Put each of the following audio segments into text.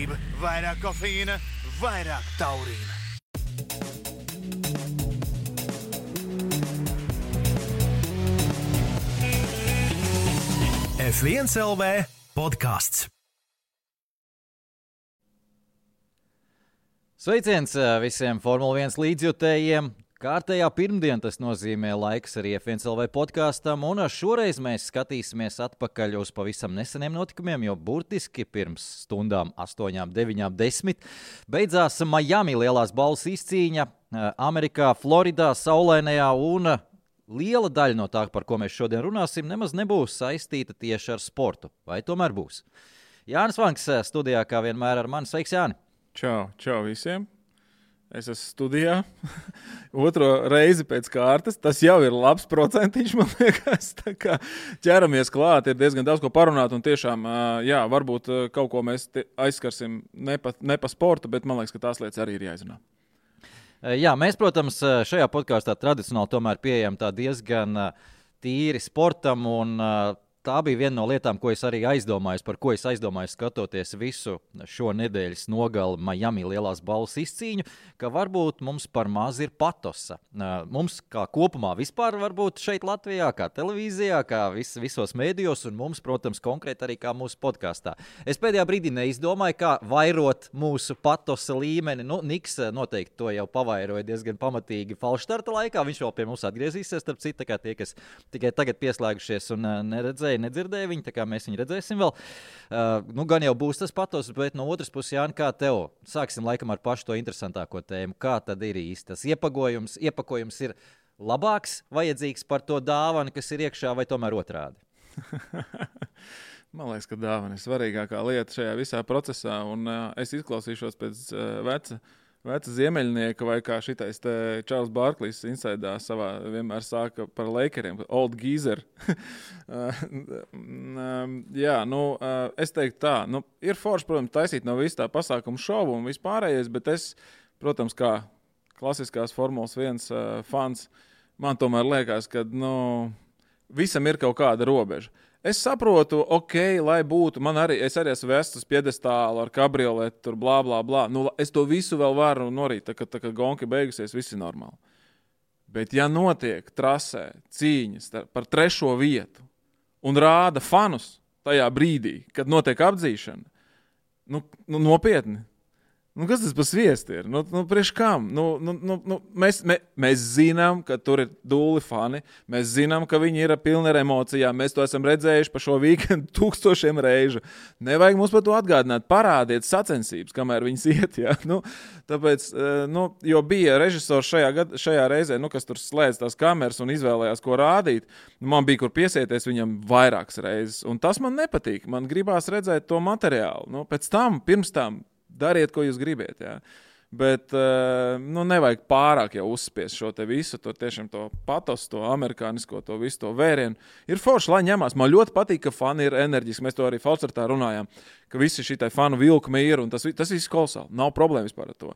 Gudrība, vairāk kofeīna, vairāk taurīna. F1 LV podcasts. Sveiciens visiem Formula 1 līdzjutējiem. Kārtējā pirmdien tas nozīmē laiks arī F1 LV podkastam, un šoreiz mēs skatīsimies atpakaļ uz pavisam neseniem notikumiem, jo burtiski pirms stundām 8, 9, 10 beidzās Miami lielās balvas izcīņa Amerikā, Floridā, saulainajā, un liela daļa no tā, par ko mēs šodien runāsim, nemaz nebūs saistīta tieši ar sportu. Vai tomēr būs? Jānis Vanks studijā, kā vienmēr ar mani. Sveiks, Jāni! Čau visiem! Es esmu studijā, otro reizi pēc kārtas. Tas jau ir labs procentiņš, man liekas. Tā kā ķeramies klāt, ir diezgan daudz ko parunāt. Un tiešām, jā, varbūt kaut ko mēs aizskarsim ne pa sportu, bet man liekas, ka tās lietas arī ir jāizrunā. Jā, mēs, protams, šajā podkāstā tradicionāli tomēr pieejam tā diezgan tīri sportam, un tā bija viena no lietām, ko es arī aizdomājos, par ko es aizdomājos skatoties visu šo nedēļas nogali Miami lielās balvas izcīņu, ka varbūt mums par maz ir patosa. Mums kā kopumā vispār varbūt šeit Latvijā, kā televīzijā, kā visos mēdījos, un mums, protams, konkrēti arī kā mūsu podkāstā. Es pēdējā brīdī neizdomāju, kā vairot mūsu patosa līmeni. Niks noteikti to jau pavairoja diezgan pamatīgi falšstarta laikā. Viņš vēl pie mums atgriezīsies, starp citu, kā tie, kas tikai tagad pieslēgušies un nedzirdēja viņu, tā kā mēs viņu redzēsim vēl. Gan jau būs tas patos, bet no otras puses, Jāni, kā tev? Sāksim laikam ar pašu to interesantāko tēmu. Kā tad ir īsti tas iepakojums ir labāks, vajadzīgs par to dāvanu, kas ir iekšā, vai tomēr otrādi? Man liekas, ka dāvana ir svarīgākā lieta šajā visā procesā, un es izklausīšos pēc veca ziemeļnieka, vai kā šitais te Čārls Barklīs insaidā savā vienmēr sāka par Lakeriem, old geezer. Jā, es teiktu tā, ir forši, protams, taisīt no visu tā pasākumu šovu un vispārējais, bet es, protams, kā klasiskās Formulas 1 fans, man tomēr liekas, ka, visam ir kaut kāda robeža. Es saprotu, lai būtu, es arī esmu vests uz piedestālu ar kabrioletu, tur blā, blā, blā. Es to visu vēl varu norīt, tā kā gonka beigusies, viss ir normāli. Bet ja notiek trasē cīņas par 3. vietu un rāda fanus tajā brīdī, kad notiek apdzīšana, nopietni. Kas tas par sviestu ir? Priekš kam? Mēs zinām, ka tur ir dūli fani. Mēs zinām, ka viņi ir pilni ar emocijām. Mēs to esam redzējuši pa šo weekendu 1000 reižu. Nevajag mums par to atgādināt. Parādiet sacensības, kamēr viņas iet. Ja? Tāpēc, jo bija režisors šajā reizē, kas tur slēdz tās kameras un izvēlējās, ko rādīt. Man bija, kur piesieties viņam vairākas reizes. Un tas man nepatīk. Man gribās redzēt to materiālu. Pirms tam, dariet, ko jūs gribiet, jā. Bet, nevajag pārāk jau uzspiest šo te visu, to tiešām to patos, to amerikānisko, to visu to vērienu. Ir forši, lai ņemās. Man ļoti patīk, ka fani ir enerģiski. Mēs to arī falšstartā runājām, ka visi šitai fanu vilkumi ir, un tas viss kolosāli. Nav problēma vispār ar to.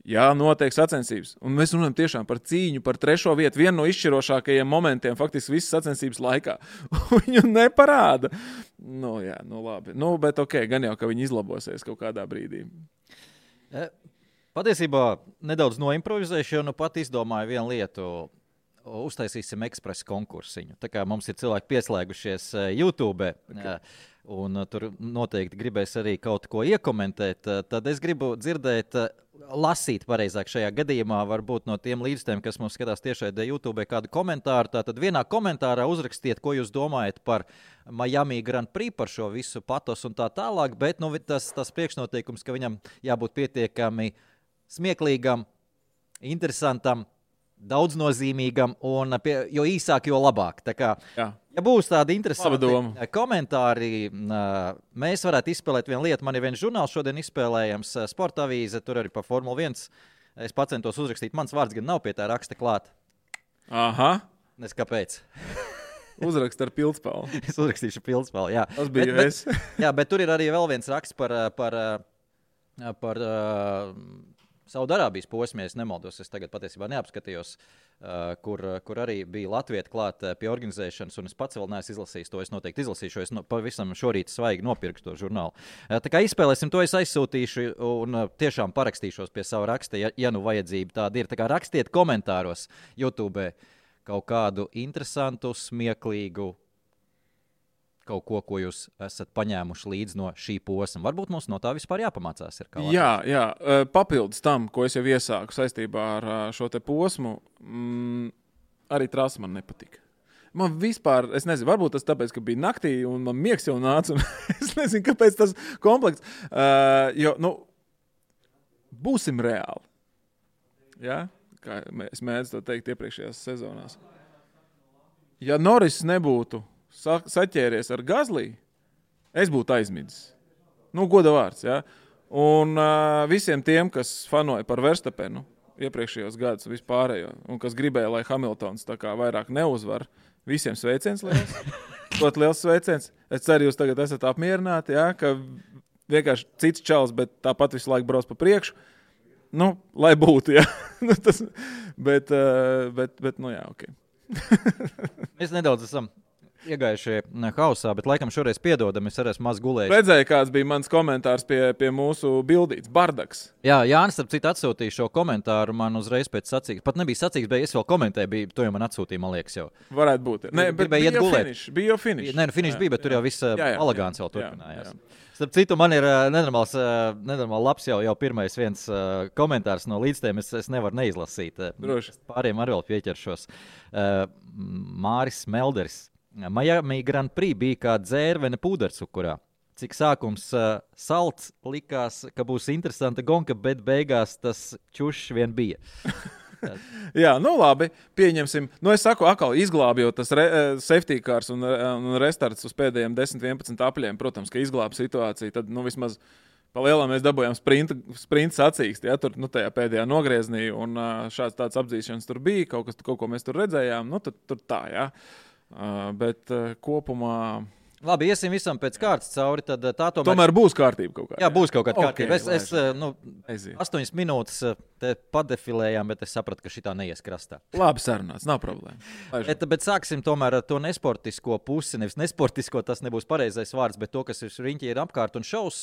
Jā, notiek sacensības. Un mēs runājam tiešām par cīņu, par 3. vietu. Vienu no izšķirošākajiem momentiem faktiski visas sacensības laikā. Viņu neparāda. Labi. Bet gan jau, ka viņi izlabosies kaut kādā brīdī. Patiesībā nedaudz noimprovizēšu, jo pat izdomāju vienu lietu. Uztaisīsim ekspresa konkursiņu. Tā kā mums ir cilvēki pieslēgušies YouTube, un tur noteikti gribēs arī kaut ko iekomentēt, tad es gribu dzirdēt, lasīt pareizāk šajā gadījumā, varbūt no tiem līdzstiem, kas mums skatās tiešraidē YouTube, kādu komentāru. Tātad vienā komentārā uzrakstiet, ko jūs domājat par Miami Grand Prix, par šo visu patos un tā tālāk, bet tas priekšnoteikums, ka viņam jābūt pietiekami smieklīgam, interesantam, daudznozīmīgam, un jo īsāk, jo labāk. Tā kā, ja būs tādi interesanti komentāri, mēs varētu izspēlēt vienu lietu. Man ir viens žurnāls šodien izspēlējams, Sporta avīze, tur arī par Formula 1. Es pacentos uzrakstīt, mans vārds gan nav pie tā raksta klāt. Aha. Nes kāpēc? Uzrakst ar pildspalvu. Es uzrakstīšu pildspalvu, jā. Tas bija jā, bet tur ir arī vēl viens raksts par Saudarābijas posmē, es nemaldos, es tagad patiesībā neapskatījos, kur arī bija latvieti klāt pie organizēšanas, un es pats vēl neesmu izlasījis to. Es noteikti izlasīšu, es pavisam šorīt svaigi nopirkšu to žurnālu. Tā kā izspēlēsim to, es aizsūtīšu un tiešām parakstīšos pie savu raksta, ja nu vajadzība tāda ir. Tā kā rakstiet komentāros YouTube kaut kādu interesantu, smieklīgu, kaut ko jūs esat paņēmuši līdz no šī posma. Varbūt mums no tā vispār jāpamācās. Jā, papildus tam, ko es jau iesāku saistībā ar šo te posmu, arī trasa man nepatika. Man vispār, es nezinu, varbūt tas tāpēc, ka bija naktī un man miegs jau nāca, un es nezinu, kāpēc tas komplekts. Jo, būsim reāli. Ja? Kā es mēdzu to teikt iepriekšējās sezonās. Ja Norris nebūtu saķēries ar Gazlī, es būtu aizmidzis. Goda vārds, ja? Un visiem tiem, kas fanoja par Verstapenu iepriekšējos gadus vispārējo, un kas gribēja, lai Hamiltons tā kā vairāk neuzvar, visiem sveiciens liels. Ļoti liels sveiciens. Es ceru, jūs tagad esat apmierināti, ja? Ka vienkārši cits čals, bet tāpat visu laiku brauc pa priekšu. Lai būtu, ja? bet, jā, ok. Mēs nedaudz esam iegājušie hausā, bet laikam šoreiz piedodam, es arī esmu maz gulējis. Redzēju, kāds bija mans komentārs pie mūsu bildītes, Bardaks. Jā, Jānis, starp citu, atsūtīja šo komentāru man uzreiz pēc sacīgas. Pat nebija sacīgas, bet es vēl komentēju, to jau man atsūtīja, man liekas jau. Varētu būt. Nē, bet bija jau finish. Nē, finish bija, bet tur jau viss elegants vēl turpinājās. Starp citu, man ir nenormāli labs jau pirmais viens komentārs no līdztiem, es nevaru neizlasīt. Droši. Pāriem arī vēl pieķeršos. Māris Melderis. Miami Grand Prix bija kā dzērvene pūdercukurā. Cik sākums salds, likās, ka būs interesanta gonka, bet beigās tas čušs vien bija. Jā, labi, pieņemsim. Es saku, atkal izglābi jau tas safety cars un restarts uz pēdējiem 10-11 apļiem. Protams, ka izglābi situāciju, tad vismaz pa lielām mēs dabūjām sprinta sacīksti, ja, tur tajā pēdējā nogrieznī, un šāds tāds apdzīšanas tur bija, kaut ko mēs tur redzējām, tur tā, jā. Bet kopumā... Labi, iesim visam pēc kārtas cauri, tad tā tomēr būs kārtība kaut kāda. Jā, būs kaut kāda kārtība. Es 8 minūtes te padefilējām, bet es sapratu, ka šitā neies krastā. Labi sarunāts, nav problēma. Bet sāksim tomēr ar to nesportisko pusi. Nevis nesportisko, tas nebūs pareizais vārds, bet to, kas ir riņķi ir apkārt un šaus.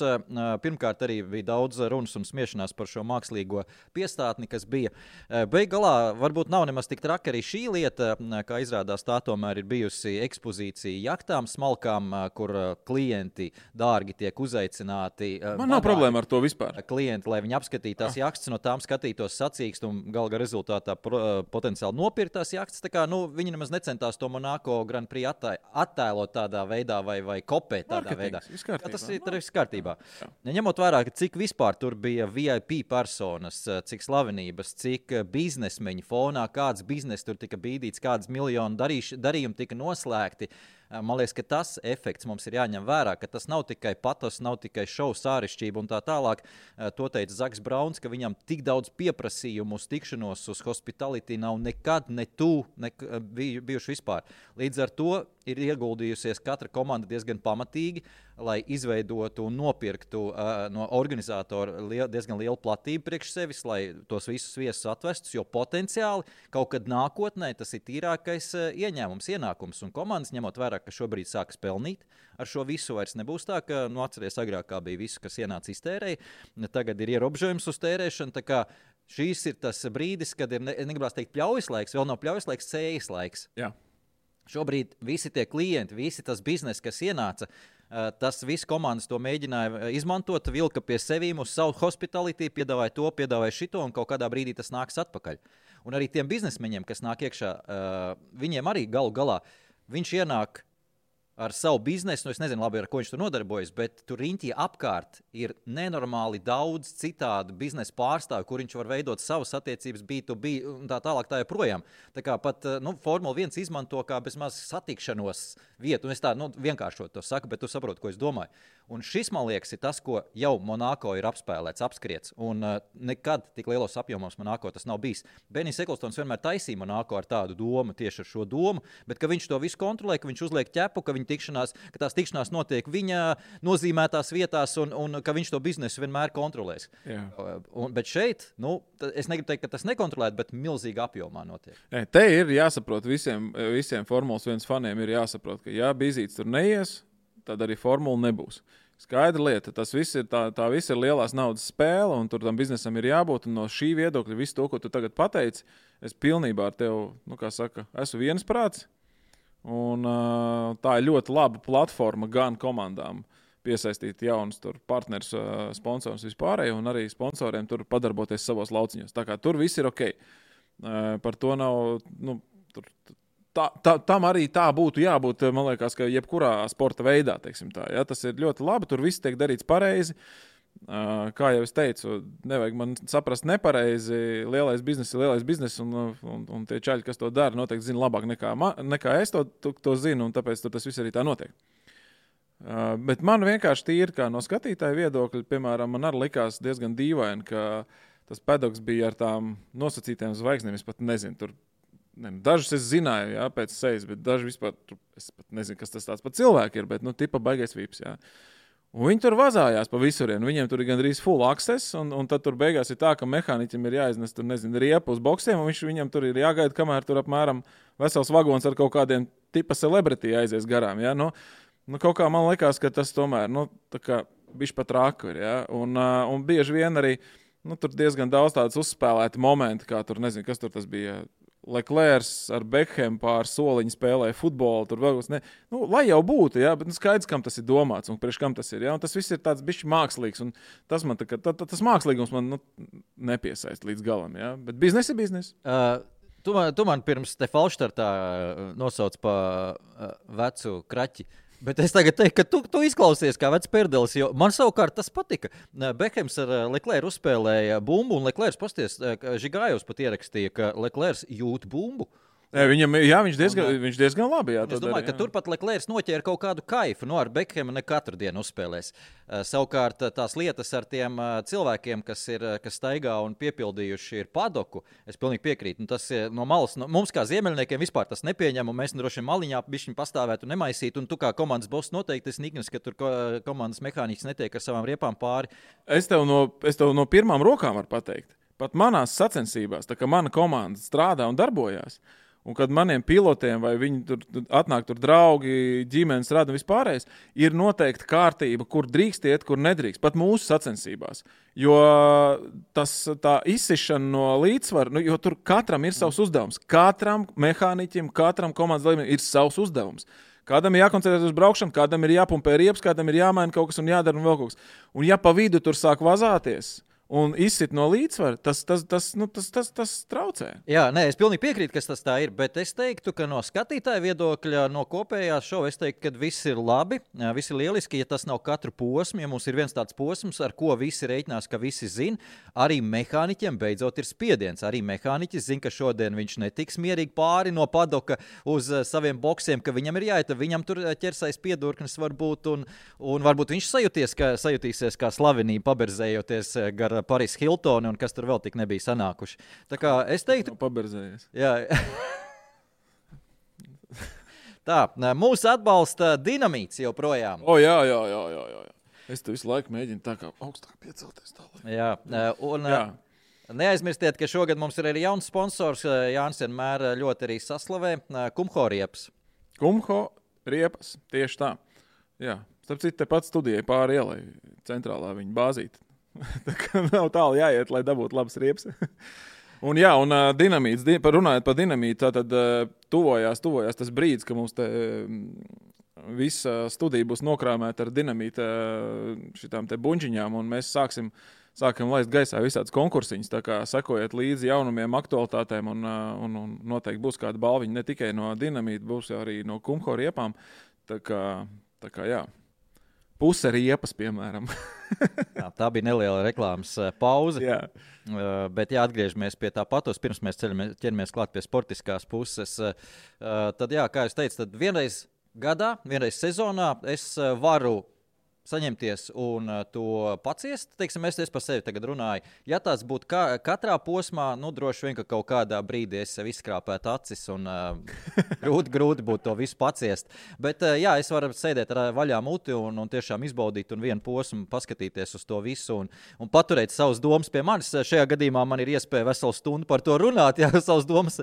Pirmkārt arī bija daudz runas un smiešanās par šo mākslīgo piestātni, kas bija. Beigalā varbūt nav nemaz tik traki arī šī lieta, kā izrādās tā tomēr ir bijusi ekspozīcija jaktām, smalkām, kur klienti dārgi tiek uzaicināti. Man nav problēma ar to vispār. Klienti, lai viņi apskatītās jaktas, no tām skatītos sacīkst un galā rezultātā potenciāli nopirktās jaktas. Tā kā viņi nemaz necentās to Monaco Grand Prix attēlot tādā veidā vai kopēt tādā veidā. Tas ir viss kārtībā. Ņemot vērā, cik vispār tur bija VIP personas, cik slavenības, cik biznesmeņi fonā, kāds biznes tur tika bīdīts, kādas miljonu darījumi tika noslēgti. Man liekas, ka tas efekts mums ir jāņem vērā, ka tas nav tikai patos, nav tikai šovu sārišķība un tā tālāk. To teica Zaks Brauns, ka viņam tik daudz pieprasījumu uz tikšanos uz hospitality nav nekad bijuši vispār. Līdz ar to ir ieguldījusies katra komanda diezgan pamatīgi, lai izveidotu un nopirktu no organizatora diezgan lielu platību priekš sevis, lai tos visus viesus atvestus, jo potenciāli kaut kad nākotnē tas ir tīrākais ienākums. Un komandas, ņemot vērā, ka šobrīd sākas pelnīt, ar šo visu vairs nebūs tā, ka, atceries, agrāk kā bija visu, kas ienāca iztērēja, tagad ir ierobežojums uz tērēšanu, tā kā šīs ir tas brīdis, kad ir, negribās teikt pļaujas laiks, vēl nav pļaujas laiks, cējas laiks. Jā. Šobrīd visi tie klienti, visi tas biznes, kas ienāca, tas viss komandas to mēģināja izmantot, vilka pie sevīm uz savu hospitality, piedāvāja to, piedāvāja šito, un kaut kādā brīdī tas nāks atpakaļ. Un arī tiem biznesmeņiem, kas nāk iekšā, viņiem arī galu galā, viņš ienāk ar savu biznesu, es nezinu labi, ar ko viņš tur nodarbojas, bet tur riņķī apkārt ir nenormāli daudz citādu biznesa pārstāvju, kur viņš var veidot savas attiecības B2B un tā tālāk tā joprojām. Tā kā pat Formula 1 izmanto kā bezmaz satikšanos vietu, un es tā vienkāršot to saku, bet tu saproti, ko es domāju. Un šis, man liekas, ir tas, ko jau Monaco ir apspēlēts, apskriets, un nekad tik lielos apjomos Monaco tas nav bijis. Benijs Eklstons vienmēr taisīja Monaco ar tādu domu, tieši ar šo domu, bet ka viņš to visu kontrolē, ka viņš uzliek ķepu, ka viņi tikšanās, ka tās tikšanās notiek viņa nozīmētās vietās un ka viņš to biznesu vienmēr kontrolēs. Bet šeit, es negribu teikt, ka tas nekontrolēt, bet milzīgā apjomā notiek. Te ir jāsaprot visiem Formulas 1 faniem ir jāsaprot, ka ja Bizīts tur neies, tad arī formula nebūs. Skaidra lieta, tas viss ir tā viss ir lielās naudas spēle, un tur tam biznesam ir jābūt. Un no šī viedokļa visu to, ko tu tagad pateici, es pilnībā ar tevi, esmu viensprāts. Un tā ir ļoti laba platforma gan komandām piesaistīt jaunus partnerus, sponsorus vispārējo, un arī sponsoriem tur padarboties savos lauciņos. Tā kā tur viss ir ok. Par to nav... Tam arī tā būtu jābūt, man liekas, ka jebkurā sporta veidā, teiksim tā. Ja? Tas ir ļoti labi, tur viss tiek darīts pareizi. Kā jau es teicu, nevajag man saprast nepareizi. Lielais biznes, un tie čaļi, kas to dara, noteikti zina labāk nekā es to zinu, un tāpēc tas viss arī tā notiek. Bet man vienkārši tīri kā no skatītāja viedokļa, piemēram, man arī likās diezgan dīvaini, ka tas pedoks bija ar tām nosacītām zvaigznēm. Es pat nezinu, tur. Dažus es zināju, jā, pēc sejas, bet daži vispār, es pat nezinu, kas tas tāds par cilvēku ir, bet, tipa baigais vips, jā. Un viņi tur vazājās pa visurien, viņiem tur ir gandrīz full access, un tad tur beigās ir tā, ka mehāniķim ir jāiznes, tur, nezinu, riepu uz boksiem, un viņam tur ir jāgaida, kamēr tur apmēram vesels vagons ar kaut kādiem tipa celebrity aizies garām, jā. Kaut kā man likās, ka tas tomēr, tā kā bišķi pat rāku ir, jā. Un bieži vien arī, tur diezgan daudz tādas uzspēlēti momenti, kā tur, nezinu, kas tur tas bija, Leclercs ar Beckham pār soliņu spēlēja futbolu, tur vēl ne. Lai jau būtu, jā, bet skaidrs, kam tas ir domāts un priekš kam tas ir, jā, un tas viss ir tāds bišķi mākslīgs, un tas man tas mākslīgums man nepiesaist līdz galam, jā, bet biznes ir biznes. Tu man pirms te falštartā nosauc pa vecu kraķi. Bet es tagad teiktu, ka tu izklausies kā vecs perdelis, jo man savukārt tas patika. Bekhams ar Leclercu uzspēlēja bumbu, un Leclercs Žigājos pat ierakstīja, ka Leclercs jūt bumbu. Viņš diezgan labi. Jā, es domāju, ka turpat Leclercs noķēra kaut kādu kaifu. Ar Beckhamu ne katru dienu uzspēlēs. Savukārt tās lietas ar tiem cilvēkiem, kas staigā un piepildījuši ir padoku, es pilnīgi piekrītu. Tas no malas, mums kā ziemeļniekiem vispār tas nepieņem, un mēs droši vien maliņā bišķiņ pastāvētu un nemaisītu. Un tu kā komandas boss noteikti esi niknis, ka tur komandas mehāniķis netiek ar savām riepām pāri. Es tev no pirmām rokām varu pateikt. Pat manās sacensībās, tā kā mana komanda strādā un darbojās, un kad maniem pilotiem vai viņi tur atnāk tur draugi, ģimenes rada un vispārējais, ir noteikti kārtība, kur drīkst iet, kur nedrīkst, pat mūsu sacensībās. Jo tā izsišana no līdzsvaru, jo tur katram ir savs uzdevums. Katram mehāniķim, katram komandas dalībniekam ir savs uzdevums. Kādam ir jākoncentrēties uz braukšanu, kādam ir jāpumpē riepas, kādam ir jāmaina kaut kas un jādara un vēl kaut kas. Un ja pa vidu tur sāk vazāties un izsit no līdzsvara, tas traucē. Jā, es pilnīgi piekrītu, kas tas tā ir, bet es teiktu, ka no skatītāja viedokļa, no kopējās šova, es teiktu, ka viss ir labi, viss ir lieliski, ja tas nav katru posmu, ja mums ir viens tāds posms, ar ko visi reiķinās, ka visi zina, arī mehāniķiem beidzot ir spiediens. Arī mehāniķis zina, ka šodien viņš netiks mierīgi pāri no padoka uz saviem boksiem, ka viņam ir jāiet, viņam tur ķersais piedurknis varbūt, un varbūt viņš sajutīsies kā slavenība paberzējoties gar Paris Hiltoni un kas tur vēl tik nebija sanākuši. Tā kā es teiktu... Paberzējies. Jā. Tā, mūs atbalsta Dinamīts joprojām. Jā. Es te visu laiku mēģinu tā kā augstāk piecelties tālāk. Jā, un... Jā. Neaizmirstiet, ka šogad mums ir arī jauns sponsors. Jānis vienmēr ļoti arī saslavē. Kumho riepas. Kumho riepas, tieši tā. Jā, starp citu, tepat studijai pāri ielai centrālā viņa bāzīta. Tā kā nav tālu jāiet, lai dabūtu labas riepas. Un Dinamīts, runājot par Dinamītu, tad tuvojās tas brīdis, ka mums te visa studija būs nokrāmēta ar Dinamīta šitām te buņģiņām, un mēs sākam laist gaisā visādas konkursiņas, tā kā sekojiet līdzi jaunumiem, aktualitātēm, un noteikti būs kāda balviņa ne tikai no Dinamīta, būs arī no Kumho riepām. Tā kā jā. Puse riepas, piemēram. Tā bija neliela reklāmas pauze. Jā. Bet atgriežamies pie tā patos, pirms mēs ķeramies klāt pie sportiskās puses. Tad, kā jūs teicat, tad vienreiz gadā, vienreiz sezonā es varu saņemties un to paciest, teiksim, es par sevi tagad runāju. Ja tās būtu katrā posmā, nu, droši vien, ka kaut kādā brīdī es sev izskrāpētu acis un grūti būtu to visu paciest. Bet, jā, es varu sēdēt ar vaļā muti un tiešām izbaudīt un vienu posmu paskatīties uz to visu un paturēt savus domas pie manis. Šajā gadījumā man ir iespēja veselu stundu par to runāt, jā, savus domas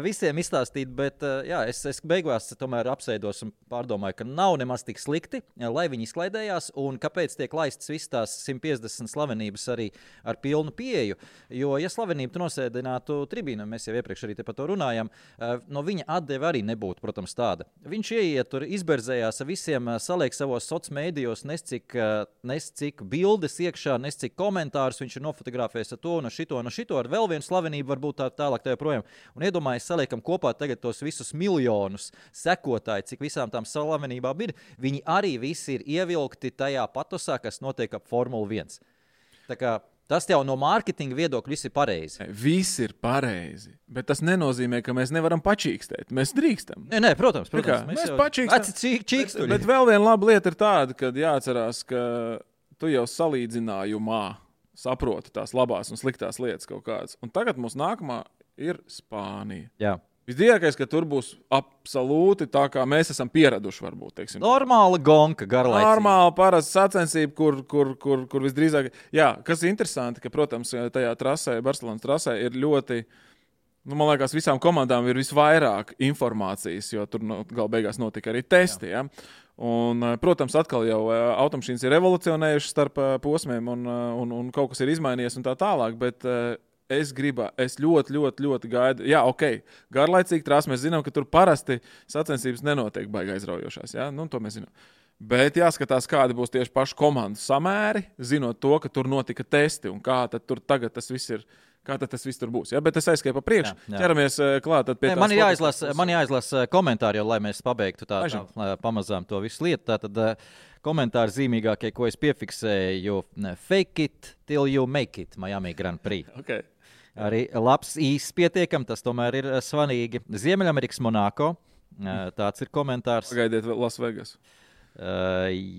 visiem izstāstīt, bet, jā, es beigās tomēr apsēdos un pārdomāju, ka nav nemaz tik slikti, lai viņi izklaidējās, un kāpēc tiek laistas visas tās 150 slavenības arī ar pilnu pieeju. Jo, ja slavenību tu nosēdinātu tribīnu, mēs jau iepriekš arī te par to runājam, no viņa atdeve arī nebūtu, protams, tāda. Viņš ieiet tur, izberzējās ar visiem, saliek savos sociālos mēdījos, nes cik bildes iekšā, nes cik komentārus, viņš ir nofotografējis ar to un šito, ar vēl vienu slavenību, varbūt tālāk tā joprojām. Un iedomājies, saliekam kopā tagad tos visus miljonus sekotāji, cik visām tām slavenībām ir. Viņi arī visi ir ievilkti tajā patosā, kas notiek ap Formula 1. Tā kā tas jau no mārketinga viedokļa viss ir pareizi. Viss ir pareizi, bet tas nenozīmē, ka mēs nevaram pačīkstēt. Mēs drīkstam. Nē, protams. Mēs pačīkstam. Bet vēl viena laba lieta ir tāda, ka jāatcerās, ka tu jau salīdzinājumā saproti tās labās un sliktās lietas kaut kādas. Un tagad mums nākamā ir Spānija. Jā. Visdrīzākais, ka tur būs absolūti tā, kā mēs esam pieraduši, varbūt. Teiksim. Normāla gonka, garlaicīga. Normāla, parasta sacensība, kur visdrīzāk. Jā, kas ir interesanti, ka, protams, tajā trasē, Barcelonas trasē ir ļoti, man liekas, visām komandām ir visvairāk informācijas, jo tur gal beigās notika arī testi. Ja? Un, protams, atkal jau automašīnas ir evolucionējušas starp posmiem un kaut kas ir izmainījies un tā tālāk, bet es ļoti gaidu. Jā, ok, garlaicīgi trās, mēs zinām, ka tur parasti sacensības nenotiek baigi aizraujošās. Ja? Nu, to mēs zinām. Bet jāskatās, kādi būs tieši paši komandu samēri, zinot to, ka tur notika testi un kā tad tur tagad tas viss ir. Kā tad tas viss tur būs? Ja? Bet es aizskaitu pa priekšu. Ķeramies klāt pie tās. Man jāizlasa komentāri, lai mēs pabeigtu tā pamazām to visu lietu. Tātad komentāri zīmīgākie, ko es piefiksēju, fake it till you make it, Miami Grand Prix. Okay. Arī labs īsts pietiekam, tas tomēr ir svarīgi. Ziemeļamerikas Monako, tāds ir komentārs. Pagaidiet Las Vegas.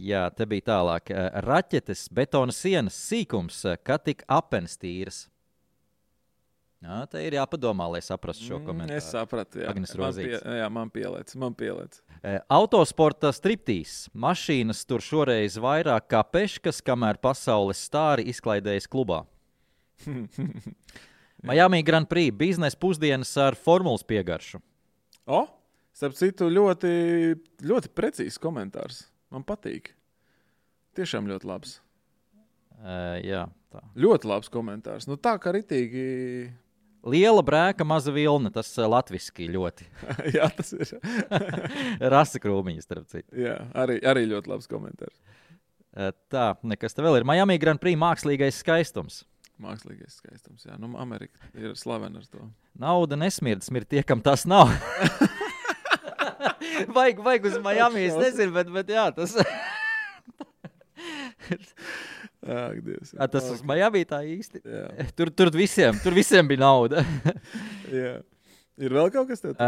Jā, te bija tālāk. Raķetes, betona sienas, sīkums, kā tik apens tīras. Jā, te ir jāpadomā, lai saprastu šo komentāru. Es sapratu, jā. Agnes Rozītes. Man pielēc. Autosporta striptīs. Mašīnas tur šoreiz vairāk kā peškas, kamēr pasaules stāri izklaidējas klubā. Miami Grand Prix biznesa pusdienas ar formulas piegaršu. Starp citu, ļoti, ļoti precīzs komentārs. Man patīk. Tiešām ļoti labs. Jā, tā. Ļoti labs komentārs. Nu tā kā ritīgi. Liela brēka, maza vilna. Tas latviski ļoti. Jā, tas ir. Rasa krūmiņas, starp citu. Jā, arī ļoti labs komentārs. Tā, nekas te vēl ir. Miami Grand Prix mākslīgais skaistums. Mākslīgais skaistums, jā. Nu, Amerika ir slavena ar to. Nauda nesmird, smird tie, kam tas nav. vajag uz Miami, es nezinu, bet jā, tas... Ak, Dievs. Tas uz Miami tā īsti. Tur visiem bija nauda. Jā. Ir vēl kaut kas tāds?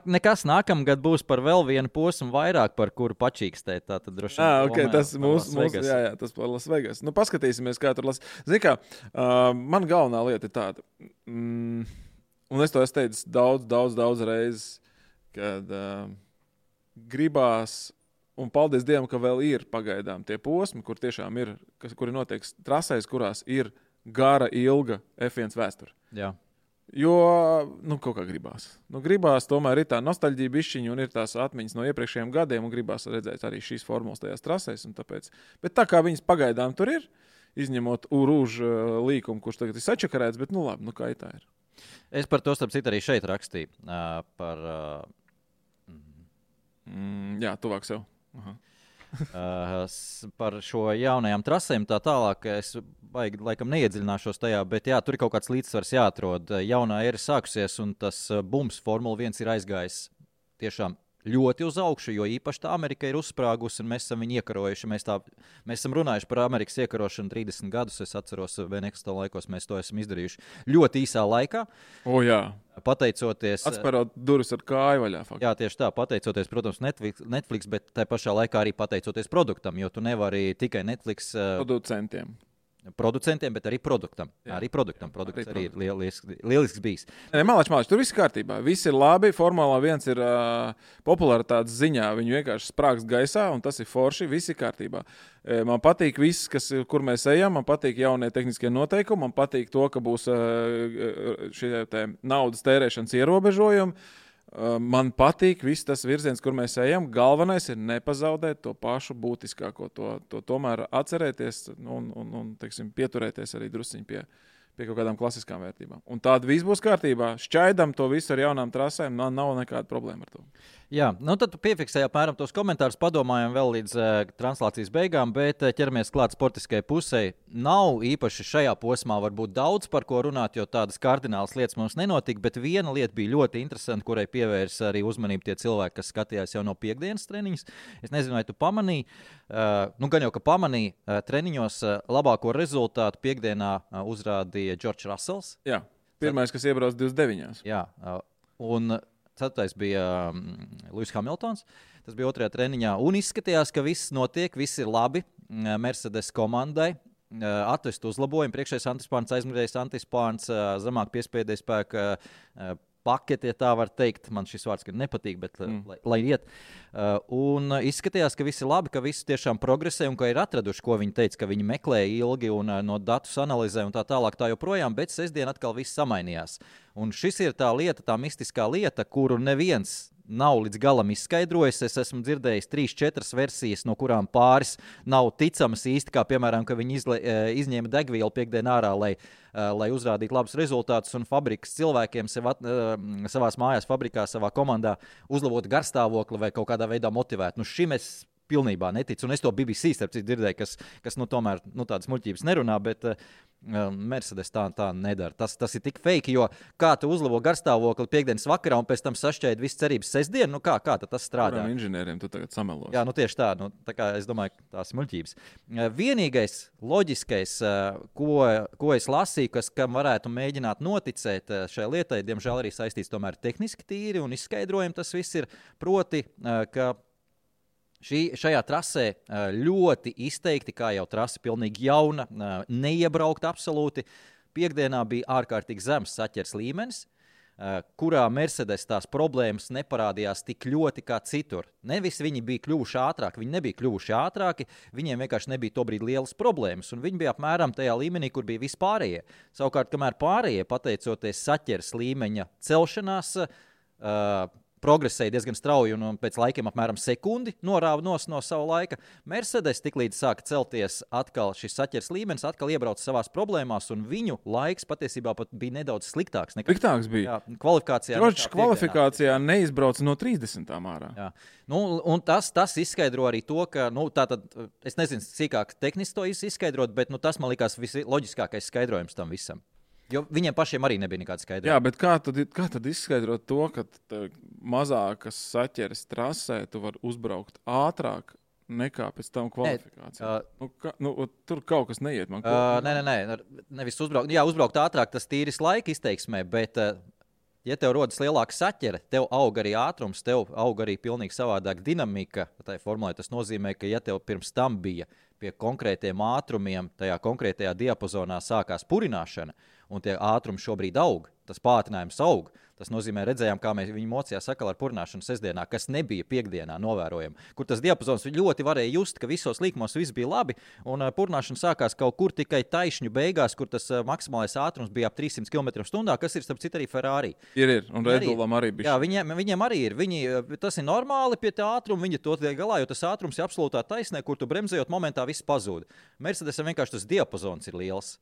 Nekas nākamgad būs par vēl vienu posmu vairāk, par kuru pačīkstēt. Tā tad droši vien. Okay, tas mūsu, jā, tas par Las Vegas. Nu, paskatīsimies, kā tur Zini kā, man galvenā lieta ir tāda, un es to esmu teicis daudz reizes, kad gribās, un paldies Dievam, ka vēl ir pagaidām tie posmi, kur tiešām ir, kuri notiek trasēs, kurās ir gara, ilga F1 vēsture. Jā. Jo, kaut kā gribās. Gribās, tomēr ir tā nostalģija bišķiņa un ir tās atmiņas no iepriekšējiem gadiem un gribās redzēt arī šīs formulas tajās trasēs un tāpēc. Bet tā kā viņas pagaidām tur ir, izņemot Urūžu līkumu, kurš tagad ir sačakarēts, bet labi, kā tā ir. Es par to starp citu arī šeit rakstīju. Jā, tuvāk sev. Aha. Par šo jaunajām trasēm tā tālāk es laikam neiedziļināšos tajā, bet jā, tur ir kaut kāds līdzsvars jāatrod. Jaunā era sākusies un tas bums Formula 1 ir aizgājis tiešām ļoti uz augšu, jo īpaši tā Amerika ir uzsprāgusi un mēs esam viņu iekarojuši. Mēs esam runājuši par Amerikas iekarošanu 30 gadus, es atceros, Beneksta laikos mēs to esam izdarījuši ļoti īsā laikā. Jā. Pateicoties... Atspērot durvis ar kāju vaļā. Faktiski. Jā, tieši tā, pateicoties, protams, Netflix, bet tā pašā laikā arī pateicoties produktam, jo tu nevari tikai Netflix... Producentiem, bet arī produktam. Jā. Arī produktam. Produkts arī ir lielisks bijis. Mālač, tur viss kārtībā. Viss ir labi. Formula 1 ir popularitātes ziņā. Viņu vienkārši sprāgst gaisā, un tas ir forši. Viss ir kārtībā. Man patīk viss, kur mēs ejam. Man patīk jaunie tehniskie noteikumi. Man patīk to, ka būs šie naudas tērēšanas ierobežojumi. Man patīk viss tas virziens, kur mēs ejam. Galvenais ir nepazaudēt to pašu būtiskāko, to tomēr atcerēties un teiksim, pieturēties arī drusciņi pie kaut kādām klasiskām vērtībām. Un tāda viss būs kārtībā. Šķaidam to visu ar jaunām trasēm, nav nekāda problēma ar to. Jā, tad piefiksēju apmēram tos komentārus, padomājam vēl līdz translācijas beigām, bet ķeramies klāt sportiskajai pusē. Nav īpaši šajā posmā varbūt daudz par ko runāt, jo tādas kardinālas lietas mums nenotika, bet viena lieta bija ļoti interesanta, kurai pievērsa arī uzmanību tie cilvēki, kas skatījās jau no piekdienas treniņas. Es nezinu, vai tu pamanīji, gan jau, ka pamanīji treniņos labāko rezultātu piekdienā uzrādīja George Russells. Jā, pirmais, kas iebrauc 29. Jā, un... Ceturtais bija Lewis Hamiltons. Tas bija otrajā treniņā. Un izskatījās, ka viss notiek, viss ir labi. Mercedes komandai atvest uzlabojumu. Priekšējais antispārns, aizmugurējais antispārns, zemāk piespēdējais spēka paketi, ja tā var teikt. Man šis vārds nepatīk, bet lai iet. Un izskatījās, ka viss ir labi, ka viss tiešām progresē un ka ir atraduši, ko viņi teica, ka viņi meklēja ilgi un no datus analizē un tā tālāk tā joprojām, bet sestdien atkal viss samainījās. Un šis ir tā lieta, tā mistiskā lieta, kuru neviens nav līdz galam izskaidrojis. Es esmu dzirdējis 3-4 versijas, no kurām pāris nav ticamas īsti, kā piemēram, ka viņi izņēma degvielu piekdien ārā, lai uzrādītu labus rezultātus un fabrikas cilvēkiem savās mājās, fabrikā, savā komandā uzlabotu garstāvokli vai kaut kādā veidā motivētu. Nu, šim es pilnībā neticu, un es to BBC starp citu dzirdēju, kas tomēr tādas muļķības nerunā, bet Mercedes tā nedara. Tas ir tik fake, jo kā tu uzlabo garstāvokli piekdienas vakarā un pēc tam sašķēdi visu cerības sestdienu, kā tad tas strādā? Kurām inženieriem tu tagad samelos? Jā, tieši tā. Tā kā es domāju, tās ir muļķības. Vienīgais loģiskais, ko es lasīju, kam varētu mēģināt noticēt šai lietai, diemžēl arī saistīts tomēr tehniski tīri un izskaidrojumi tas viss ir, proti, ka šajā trasē ļoti izteikti, kā jau trase pilnīgi jauna, neiebraukta absolūti. Piekdienā bija ārkārtīgi zems saķers līmenis, kurā Mercedes tās problēmas neparādījās tik ļoti kā citur. Nevis viņi bija kļuvuši ātrāki, viņi nebija kļuvuši ātrāki, viņiem vienkārši nebija tobrīd lielas problēmas, un viņi bija apmēram tajā līmenī, kur bija vispārējie. Savukārt, kamēr pārējie, pateicoties saķers līmeņa celšanās, progresēja diezgan strauji un pēc laikiem apmēram sekundi norāva no sava laika. Mercedes tiklīdz sāka celties atkal šis saķers līmenis, atkal iebrauca savās problēmās, un viņu laiks patiesībā pat bija nedaudz sliktāks. Sliktāks bija. Jā, kvalifikācijā. Kvalifikācijā neizbrauca no 30. ārā. Jā. Un tas izskaidro arī to, ka, tātad, es nezinu, cīkāk tehniski to izskaidrot, bet tas man likās visloģiskākais skaidrojums tam visam. Jo viņiem pašiem arī nebija nekāda skaidrojuma. Jā, bet kā tad izskaidrot to, ka mazākas saķeres trasē tu vari uzbraukt ātrāk nekā pēc tam kvalifikācijā? Tur kaut kas neiet man. Nē, nevis uzbraukt. Jā, uzbraukt ātrāk, tas tīris laika izteiksmē, bet ja tev rodas lielāka saķere, tev aug arī ātrums, tev aug arī pilnīgi savādāk dinamika. Tā formulē tas nozīmē, ka ja tev pirms tam bija pie konkrētiem ātrumiem, tajā konkrētajā diapazonā sākās purināšana, un tie ātrumi šobrīd aug, tas pātrinājums aug. Tas nozīmē, redzējām, kā viņi mocījās sakal ar purināšanu sestdienā, kas nebija piekdienā novērojama, kur tas diapazons ļoti varēja just, ka visos līkumos viss bija labi, un purināšana sākās kaut kur tikai taišņu beigās, kur tas maksimālais ātrums bija ap 300 km/h, kas ir starp citu arī Ferrari. Ir, un Red Bullam arī bija. Jā, viņiem arī ir. Tas ir normāli pie tā ātruma, viņi to tiek galā, jo tas ātrums ir absolūtā taisnē, kur tu bremzējot momentā viss pazūd. Mercedesam vienkārši tas diapazons ir liels.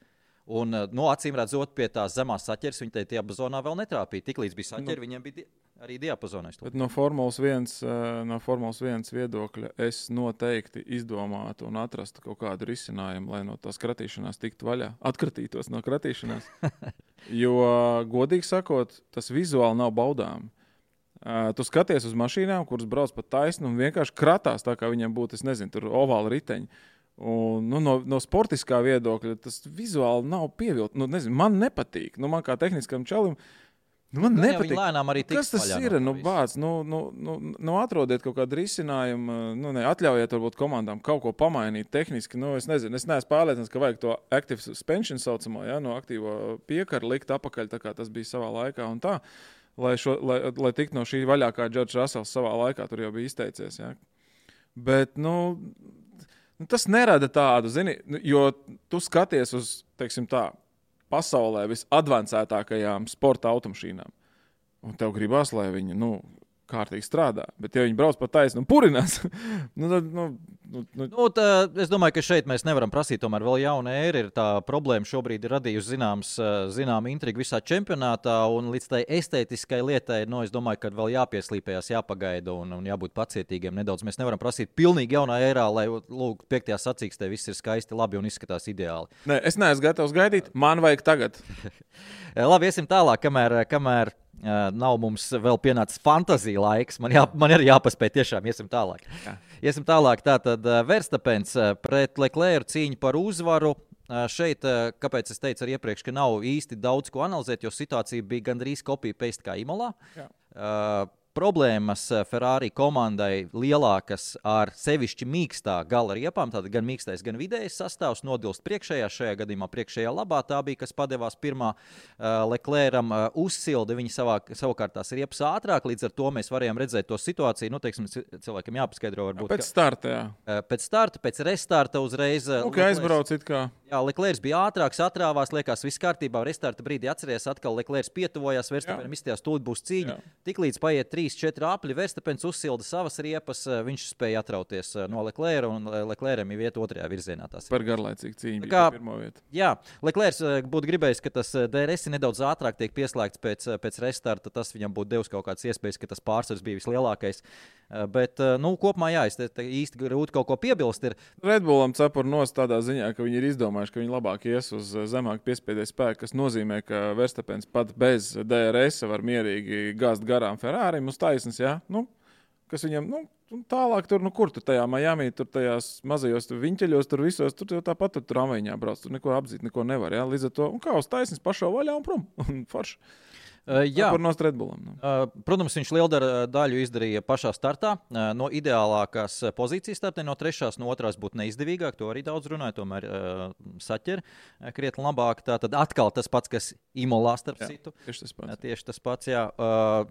Un, acīm redzot, pie tās zemās saķeres viņi tajā diapazonā vēl netrāpīja. Tiklīdz bija saķeri, viņiem bija arī diapazonais. Bet no Formulas 1 viedokļa es noteikti izdomātu un atrastu kaut kādu risinājumu, lai no tās kratīšanās tiktu vaļā. Atkratītos no kratīšanās. Jo, godīgi sakot, tas vizuāli nav baudām. Tu skaties uz mašīnām, kuras brauc pa taisnu un vienkārši kratās tā, kā viņiem būtu, es nezinu, tur ovāli riteņi. Un, no sportiskā viedokļa tas vizuāli nav pievilkt. Man nepatīk. Man kā tehniskam čalim Man nepatīk. Viņi lēnām arī tiks Kas tas ir? Bāc, atrodiet kaut kādu risinājumu, atļaujiet varbūt komandām kaut ko pamainīt tehniski. Es nezinu, es neesmu pārliecināts, ka vajag to active suspension saucamo, no aktīvo piekaru likt apakaļ, tā kā tas bija savā laikā un tā, lai tiktu no šī vaļā, kā Džordžs Rasels savā laikā tur jau bija izteicies, ja. Bet, tas nerada tādu, zini, jo tu skaties uz, teiksim tā, pasaulē visadvancētākajām sporta automašīnām. Un tev gribās, lai viņi, kārtīgi strādā. Bet ja viņi brauc pa taisnu un purinās, es domāju, ka šeit mēs nevaram prasīt tomēr vēl jauna ēra. Tā problēma šobrīd ir radījusi zinām intrigu visā čempionātā, un līdz tai estētiskai lietai, es domāju, ka vēl jāpieslīpējās, jāpagaida un jābūt pacietīgiem nedaudz. Mēs nevaram prasīt pilnīgi jaunā ērā, lai, 5. sacīkstē viss ir skaisti, labi un izskatās ideāli. Nē, es neesmu gatavs gaidīt, man vajag tagad. Labi, iesim tālāk, kamēr nav mums vēl pienācis fantazija laiks. Man arī jāpaspēj tiešām, iesim tālāk. Jā. Iesim tālāk, tātad Verstapens pret Leclercu cīņu par uzvaru. Šeit, kāpēc es teicu arī iepriekš, ka nav īsti daudz ko analizēt, jo situācija bija gandrīz copy-paste kā Imolā. Problēmas Ferrari komandai lielākas ar sevišķi mīkstā gala riepām, tātad gan mīkstais, gan vidējais sastāvs nodilst priekšējā, šajā gadījumā priekšējā labā, tā bija, kas padevās pirmā Leclercam uzsildi, viņi savukārt tās riepas ātrāk, līdz ar to mēs varējām redzēt to situāciju, cilvēkam jāpaskaidro varbūt. Pēc starta, jā. Pēc starta, pēc restarta uzreiz. Aizbrauc it kā. Jā, Leclercs bija ātrāks, atrāvās, liekas, viss kārtībā. Restarta brīdī atceries, atkal Leclercs pietuvojās, Verstapenam izstījās, tūlīt būs cīņa. Tiklīdz paiet 3-4 apļi, Verstapens uzsilda savas riepas, viņš spēja atrauties no Leclerca, un Leclercam ir vieta otrajā virzienā. Par garlaicīgu cīņu bija pirmo vietu. Jā, Leclercs būtu gribējis, ka tas DRS nedaudz ātrāk tiek pieslēgts pēc restarta, tas viņam būtu devis kaut kādas iespējas, ka tas pārsvars bija vislielākais. Bet, kopumā jā, es īsti grūti kaut ko piebilst. Red Bullam cepur nost tādā ziņā, ka viņi ir izdomājuši, ka viņi labāk ies uz zemāk piespiedēju spēku, kas nozīmē, ka Verstapens pat bez DRS var mierīgi gāzt garām Ferrari uz taisnes, jā? Kas viņam, tālāk tur, kur tu tajā Miami, tur tajās mazajos viņķeļos, tur visos, tur tāpat tur tramvajiņā brauc, tur neko apdzīt, neko nevar, jā? Līdz ar to, un kā uz taisnes pašā vaļā un prom, un forši. Jā, protams, viņš lielu daļu izdarīja pašā startā. No ideālākās pozīcijas startē, no 3. no 2. būtu neizdevīgāk. To arī daudz runāja, tomēr saķer krietni labāk. Tātad atkal tas pats, kas Imolā starp citu. Tieši tas pats, jā.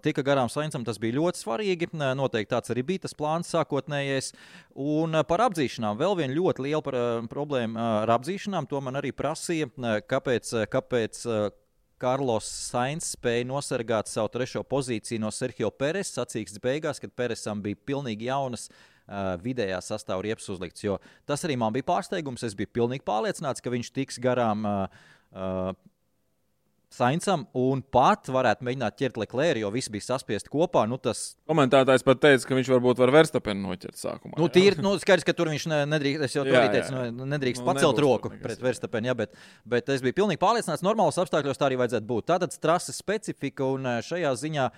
Tika garām Saincam, tas bija ļoti svarīgi. Noteikti tāds arī bija tas plāns sākotnējais. Un par apdzīšanām vēl viena ļoti liela problēma ar apdzīšanām. To man arī prasīja, kāpēc Carlos Sainz spēja nosargāt savu 3. pozīciju no Sergio Perez sacīkstes beigās, kad Perezam bija pilnīgi jaunas vidējā sastāva riepas uzlikts. Jo tas arī man bija pārsteigums. Es biju pilnīgi pārliecināts, ka viņš tiks garām Saincam un pat varētu mēģināt ķert Leclercu, jo viss bija saspiesti kopā. Komentētājs pat teica, ka viņš varbūt var Verstapenu noķert sākumā. Skaidrs, ka tur viņš nedrīkst, es jau to arī teicu, nedrīkst pacelt roku pret Verstapenu, jā, bet es biju pilnīgi pārliecināts, normālos apstākļos tā arī vajadzētu būt. Tātad trases specifika un šajā ziņā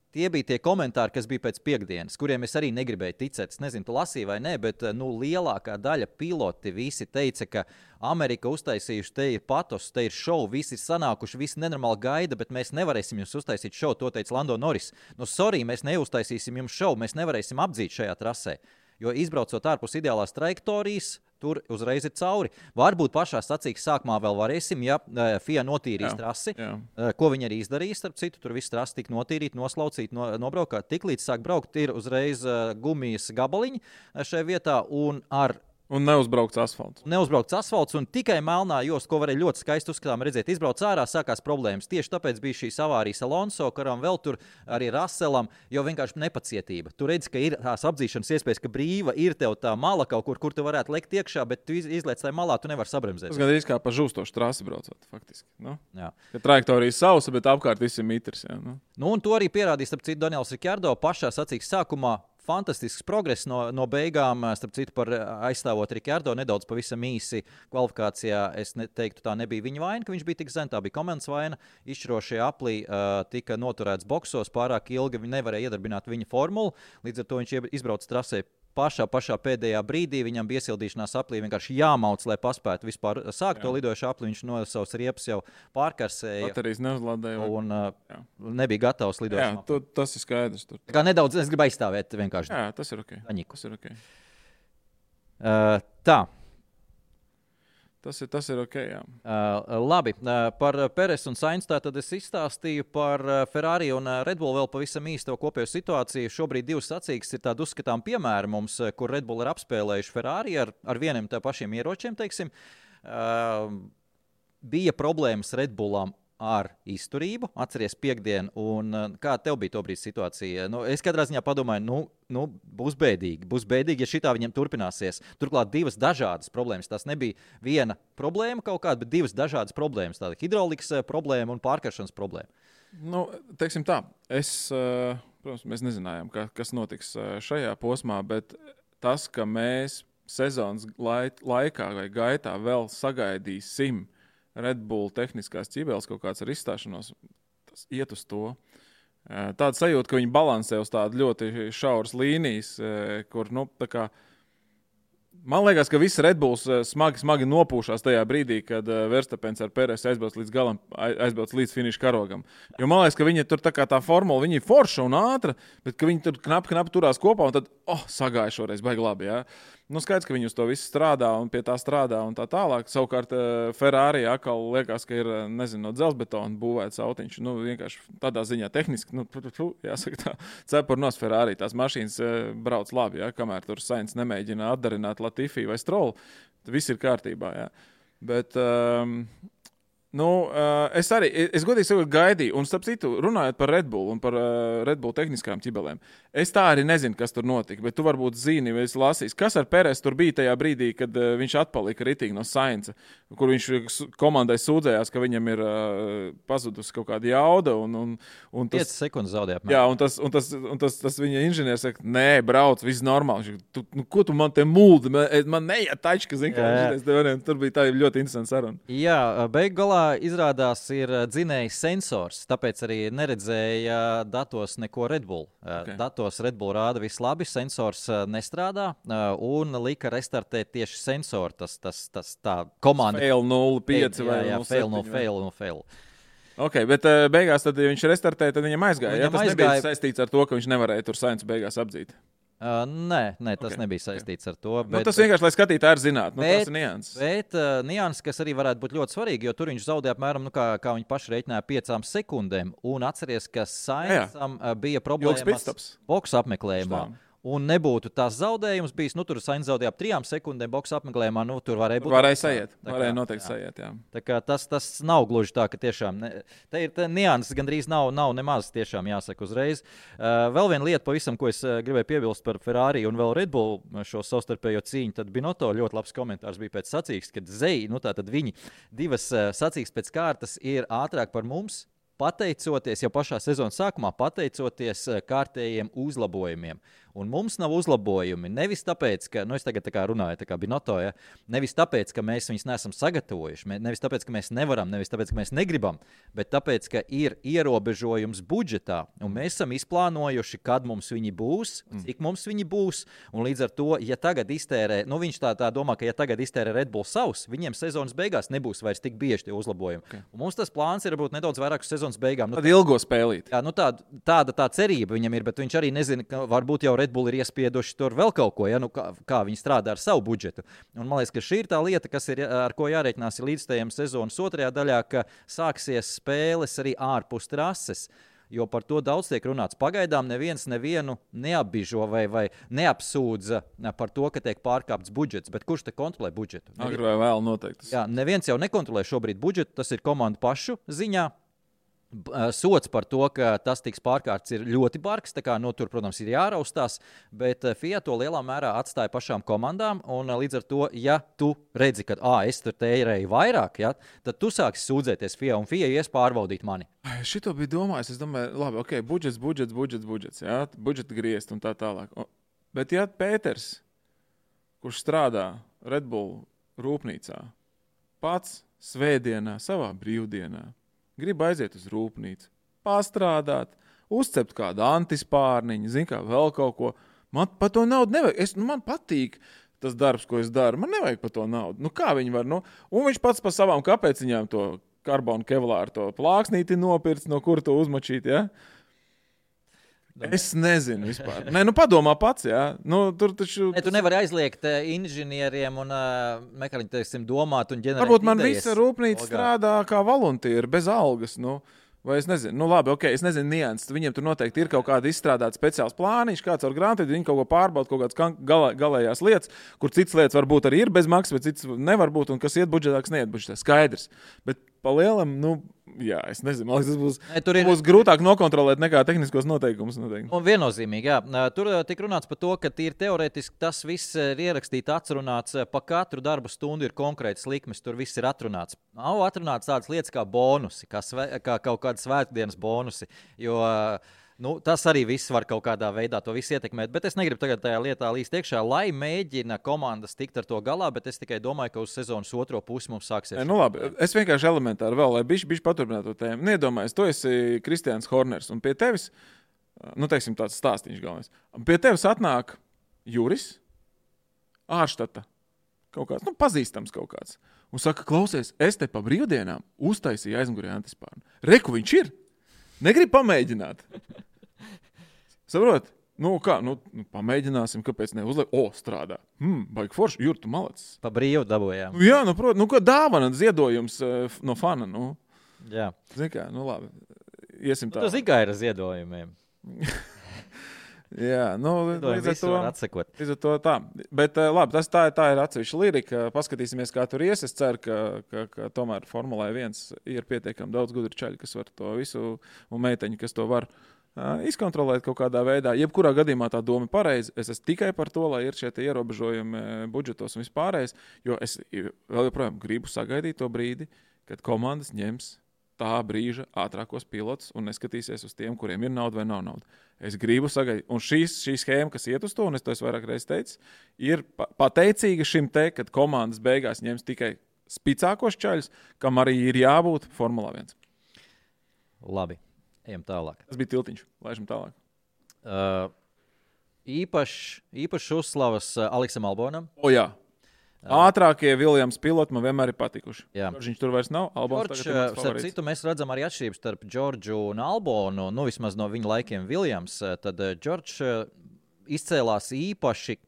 tie bija tie komentāri, kas bija pēc piekdienas, kuriem es arī negribēju ticēt. Es nezinu, tu lasīji vai nē, bet lielākā daļa piloti visi teica, ka Amerika uztaisījuši, te ir patos, te ir šovu, visi ir sanākuši, visi nenormāli gaida, bet mēs nevarēsim jums uztaisīt šovu, to teica Lando Norris. Sorry, mēs neuztaisīsim jums šovu, mēs nevarēsim apdzīt šajā trasē, jo izbraucot ārpus ideālās trajektorijas, tur uzreiz ir cauri. Varbūt pašā sacīkstes sākumā vēl varēsim, ja FIA notīrīs trasi, ko viņi arī izdarīs, starp citu, tur viss trasi tika notīrīt, noslaucīt, nobraukāt. Tiklīdz sāk braukt, ir uzreiz gumijas gabaliņi šajā vietā un neuzbraukts asfalts. Un tikai melnā josta, ko varēja ļoti skaisti uzskatām redzēt, izbrauc ārā, sākās problēmas. Tieši tāpēc bija šīs avārijas Alonso, karam vēl tur arī Russellam, jo vienkārši nepacietība. Tu redzi, ka ir tās apdzīšanas iespējas, ka brīva ir tev tā mala kaut kur tu varētu lekt iekšā, bet tu izliec tajā malā, tu nevari sabremzēt. Tas gandrīz kā pa žūstošu trasi braucot, faktiski. Jā. Ka trajektorija sausa, bet apkārt viss ir mitrs. Jā, un to arī pierādīja, starp citu, Daniels Ricciardo pašā sacīkstes sākumā. Fantastisks progress no beigām, starp citu, par aizstāvot Ricciardo nedaudz pavisam īsi kvalifikācijā. Es teiktu, tā nebija viņa vaina, ka viņš bija tik zem, tā bija komandas vaina. Izšķirošie aplī tika noturēts boksos pārāk ilgi, viņi nevarēja iedarbināt viņa formulu, līdz ar to viņš izbrauc trasē pašā pēdējā brīdī viņam bija iesildīšanās aplī vienkārši jāmauc, lai paspētu vispār sākt to lidojušu apli. Viņš no savas riepas jau pārkarsēja. Baterijas neuzlādēja. Un nebija gatavs lidojušam. Jā, tas ir skaidrs. Tur. Tā kā nedaudz es gribu aizstāvēt vienkārši. Jā, tas ir ok. Aņiku. Tas ir ok. Tā. Tas ir ok, jā. Labi, par Peres un Sainz tad es izstāstīju par Ferrari un Red Bull vēl pavisam īsto kopējo situāciju. Šobrīd divas sacīkstes ir tādi uzskatām piemēri mums, kur Red Bull ir apspēlējuši Ferrari ar vieniem tā pašiem ieročiem, teiksim. Bija problēmas Red Bullam ar izturību, atceries piekdienu, un kā tev bija tobrīd situācija? Es katrā ziņā padomāju, būs bēdīgi, ja šitā viņam turpināsies. Turklāt divas dažādas problēmas. Tas nebija viena problēma kaut kāda, bet divas dažādas problēmas. Tāda hidraulikas problēma un pārkaršanas problēma. Teiksim tā, protams, mēs nezinājām, kas notiks šajā posmā, bet tas, ka mēs sezonas laikā vai gaitā vēl sagaidīsim Red Bull tehniskās ķibeles kaut kāds ar izstāšanos, tas iet uz to. Tāda sajūta, ka viņi balansē uz tādu ļoti šauras līnijas, kur, tā kā, man liekas, ka visi Red Bulls smagi nopūšās tajā brīdī, kad Verstapens ar Peres aizbrauc līdz galam, aizbrauc līdz finiša karogam. Jo man liekas, ka viņi tur tā formula, viņi ir forša un ātra, bet ka viņi tur knapi turās kopā un tad, sagāja šoreiz, baigi labi, jā. Skaidrs, ka viņi uz to visu strādā un pie tā strādā un tā tālāk. Savukārt Ferrari atkal liekas, ka ir, no dzelzbetona būvēts autiņš. Vienkārši tādā ziņā tehniski, jāsaka tā, cepurnos Ferrari. Tās mašīnas brauc labi, jā, kamēr tur Sainz nemēģina atdarināt Latifi vai Stroll. Viss ir kārtībā, jā. Bet, es godīgi sakot gaidīju, un starp citu, runājot par Red Bull un par Red Bull tehniskām ķibelēm, es tā arī nezinu, kas tur notika, bet tu varbūt zini, vai esi lasījis, kas ar Peres tur bija tajā brīdī, kad viņš atpalika ritīgi no Sainza, kur viņš komandai sūdzējās, ka viņam ir pazudusi kaut kāda jauda. Un 5 sekundes zaudēja. Jā, un tas viņa inženieris saka, nē, brauc, viss normāli. Ko tu man te muldi? Man neiet tačka, zini, kā tur bija tā ļoti interesanta saruna. Jā, beiggalā izrādās ir dzinējs sensors, tāpēc arī neredzēja datos neko Red Bull. Okay. Datos Red Bull rāda viss labi, sensors nestrādā un lika restartēt tieši sensoru. Tas tā komanda. Fail 0,5 vai 0,7. Fail. Ok, bet beigās, tad, ja viņš restartēja, tad viņam aizgāja. Tas nebija saistīts ar to, ka viņš nevarēja tur Sainzu beigās apdzīt. Nē, tas nebija saistīts ar to. Bet, tas vienkārši, lai skatītāji zinātu, tas ir nianses. Bet nianses, kas arī varētu būt ļoti svarīgi, jo tur viņš zaudēja apmēram, kā viņi paši reiķināja, 5 sekundēm. Un atceries, ka Sainzam bija problēmas boksa apmeklējumā. Un nebūtu tās zaudējums bijis, tur Sainz zaudēja ap 3 sekundēm boksa apmeklējumā, tur varēja būt. Varēja noteikti sajiet, jā. Tā kā tas nav gluži tā, ka tiešām, te ir nianses gandrīz nav nemaz tiešām jāsaka uzreiz. Vēl viena lieta pavisam, ko es gribēju piebilst par Ferrari un vēl Red Bull šo savstarpējo cīņu, tad Binotto ļoti labs komentārs bija pēc sacīkstes, kad tātad viņi divas sacīkstes pēc kārtas ir ātrāk par mums, pateicoties jau pašā sezonas sākumā, pateicoties kārtējiem uzlabojumiem. Un mums nav uzlabojumi nevis tāpēc, ka, es tagad tā kā runāju, tā kā Binotto, ja, nevis tāpēc, ka mēs viņus neesam sagatavojuši, nevis tāpēc, ka mēs nevaram, nevis tāpēc, ka mēs negribam, bet tāpēc, ka ir ierobežojums budžetā, un mēs esam izplānojuši, kad mums viņi būs, cik mums viņi būs, un līdz ar to, ja tagad iztērē, viņš tā domā, ka ja tagad iztērē Red Bull savus, viņiem sezonas beigās nebūs vairs tik bieži tie uzlabojumi. Okay. Un mums tas plāns ir varbūt nedaudz vairāk uz sezonas beigām. Tad ilgo spēlīt. Jā, tāda tā cerība viņam ir, bet viņš arī nezina, ka varbūt jau Red Bull ir iespieduši tur vēl kaut ko, kā viņi strādā ar savu budžetu. Un man liekas, ka šī ir tā lieta, kas ir, ar ko jārēķinās līdzstājiem sezonas otrajā daļā, ka sāksies spēles arī ārpus trases. Jo par to daudz tiek runāts. Pagaidām neviens nevienu neapbižo vai neapsūdza par to, ka tiek pārkāpts budžets. Bet kurš te kontrolē budžetu? Agri vai vēl noteikti. Jā, neviens jau nekontrolē šobrīd budžetu, tas ir komandu pašu ziņā. Sots par to, ka tas tiks pārkārts, ir ļoti bargs. Tur, protams, ir jāraustās, bet FIA to lielā mērā atstāja pašām komandām. Līdz ar to, ja tu redzi, ka es tur tērēju vairāk, tad tu sāksi sūdzēties FIA, un FIA ies pārbaudīt mani. Šito bija domājis. Es domāju, labi, ok, budžets, jā, budžeta griezt un tā tālāk. Bet ja Pēters, kurš strādā Red Bull rūpnīcā, pats svētdienā, savā brīvdienā, grib aiziet uz rūpnīcu, pastrādāt, uzcept kādu antispārniņu, vēl kaut ko, Man par to naudu nevajag. Man patīk tas darbs, ko es daru. Man nevajag par to naudu. Nu, kā viņi var? Nu? Un viņš pats par savām kāpēciņām to karbonu kevlāru, to plāksnīti nopirts, no kura to uzmačīt, ja? Es nezinu vispār. Nē, nu padomā pats, jā. Nu, tur taču... Tu nevari aizliegt inženieriem un mehāniķiem domāt un ģenerēt varbūt man idejas. visa rūpnīca strādā kā voluntīri, bez algas, nu. Vai es nezinu, nu labi, ok, es nezinu nianses. Viņiem tur noteikti ir kaut kāda izstrādāta speciāls plāniņš, kāds ar grāmatu, viņi kaut ko pārbauda, kaut kādas galējās lietas, kur citas lietas varbūt arī ir bez maksas, bet citas nevar būt, un kas iet budžetā, kas neiet budžetā. Skaidrs. Bet pa lielam, nu, jā, es nezinu, man liekas, tas būs grūtāk nokontrolēt nekā tehniskos noteikumus. Noteikti. Un viennozīmīgi, jā. Tur tika runāts par to, ka tīri teorētiski tas viss ir ierakstīts, atrunāts, pa katru darba stundu ir konkrēts likmes, tur viss ir atrunāts. Nav atrunāts tādas lietas kā bonusi, kā kaut kāda svētdienas bonusi, jo nu, tas arī viss var kaut kādā veidā to visu ietekmēt, bet es negribu tagad tajā lietā līst iekšā, lai mēģina komandas tikt ar to galā, bet es tikai domāju, ka uz sezonas otro pusi mums sāksies. Nu labi, es vienkārši elementāri vēl, lai bišķi paturpinātu to tēmu. Neiedomājies, tu esi Kristians Horners, un pie tevis, nu teiksim tāds stāstīņš galvenais, un pie tevis atnāk Juris, ārštata, kaut kāds, nu pazīstams kaut kāds, un saka, klausies, es te pa brīvdienām uztaisīju aizmugurē antispārnu. Reku viņš ir? Negrib pamēģināt. Saprot? Nu, kā? Nu, pamēģināsim, kāpēc neuzliek. O, strādā. Baigi forši. Jur, tu malacis. Pa brīvu dabūjām. Nu, jā, nu, protams. Nu, kā dāvana, ziedojums no fana. Nu. Jā. Zini kā, nu, labi. Iesim tā. Tu zini, kā ir ar ziedojumiem. Jā, nu, līdz ar to tā. Bet, labi, tā ir atsevišķa lirika. Paskatīsimies, kā tur ies. Es ceru, ka tomēr Formulē 1 ir pietiekami daudz gudru čaļu, kas var to visu, un meiteņi, kas to var izkontrolēt kaut kādā veidā. Jebkurā gadījumā tā doma ir pareiza. Es esmu tikai par to, lai ir šie ierobežojumi budžetos un vispārējais, jo es vēl joprojām gribu sagaidīt to brīdi, kad komandas ņems tā brīža ātrākos pilotus un neskatīsies uz tiem, kuriem ir nauda vai nav nauda. Es gribu sagaidīt. Un šī schēma, kas iet uz to, un es to vairāk reizes teicu, ir pateicīga šim te, kad komandas beigās ņems tikai spicākos čaļus, kam arī ir jābūt Formulā 1. Labi, ejam tālāk. Tas bija tiltiņš, laižam tālāk. Īpašs uzslavas Aleksam Albonam. O jā. Ātrākie Viljams piloti man vienmēr ir patikuši. Viņš tur vairs nav. Starp citu, mēs redzam arī atšķirības starp Džordžu un Albonu, nu vismaz no viņa laikiem Viljams. Tad Džordžs izcēlās īpaši,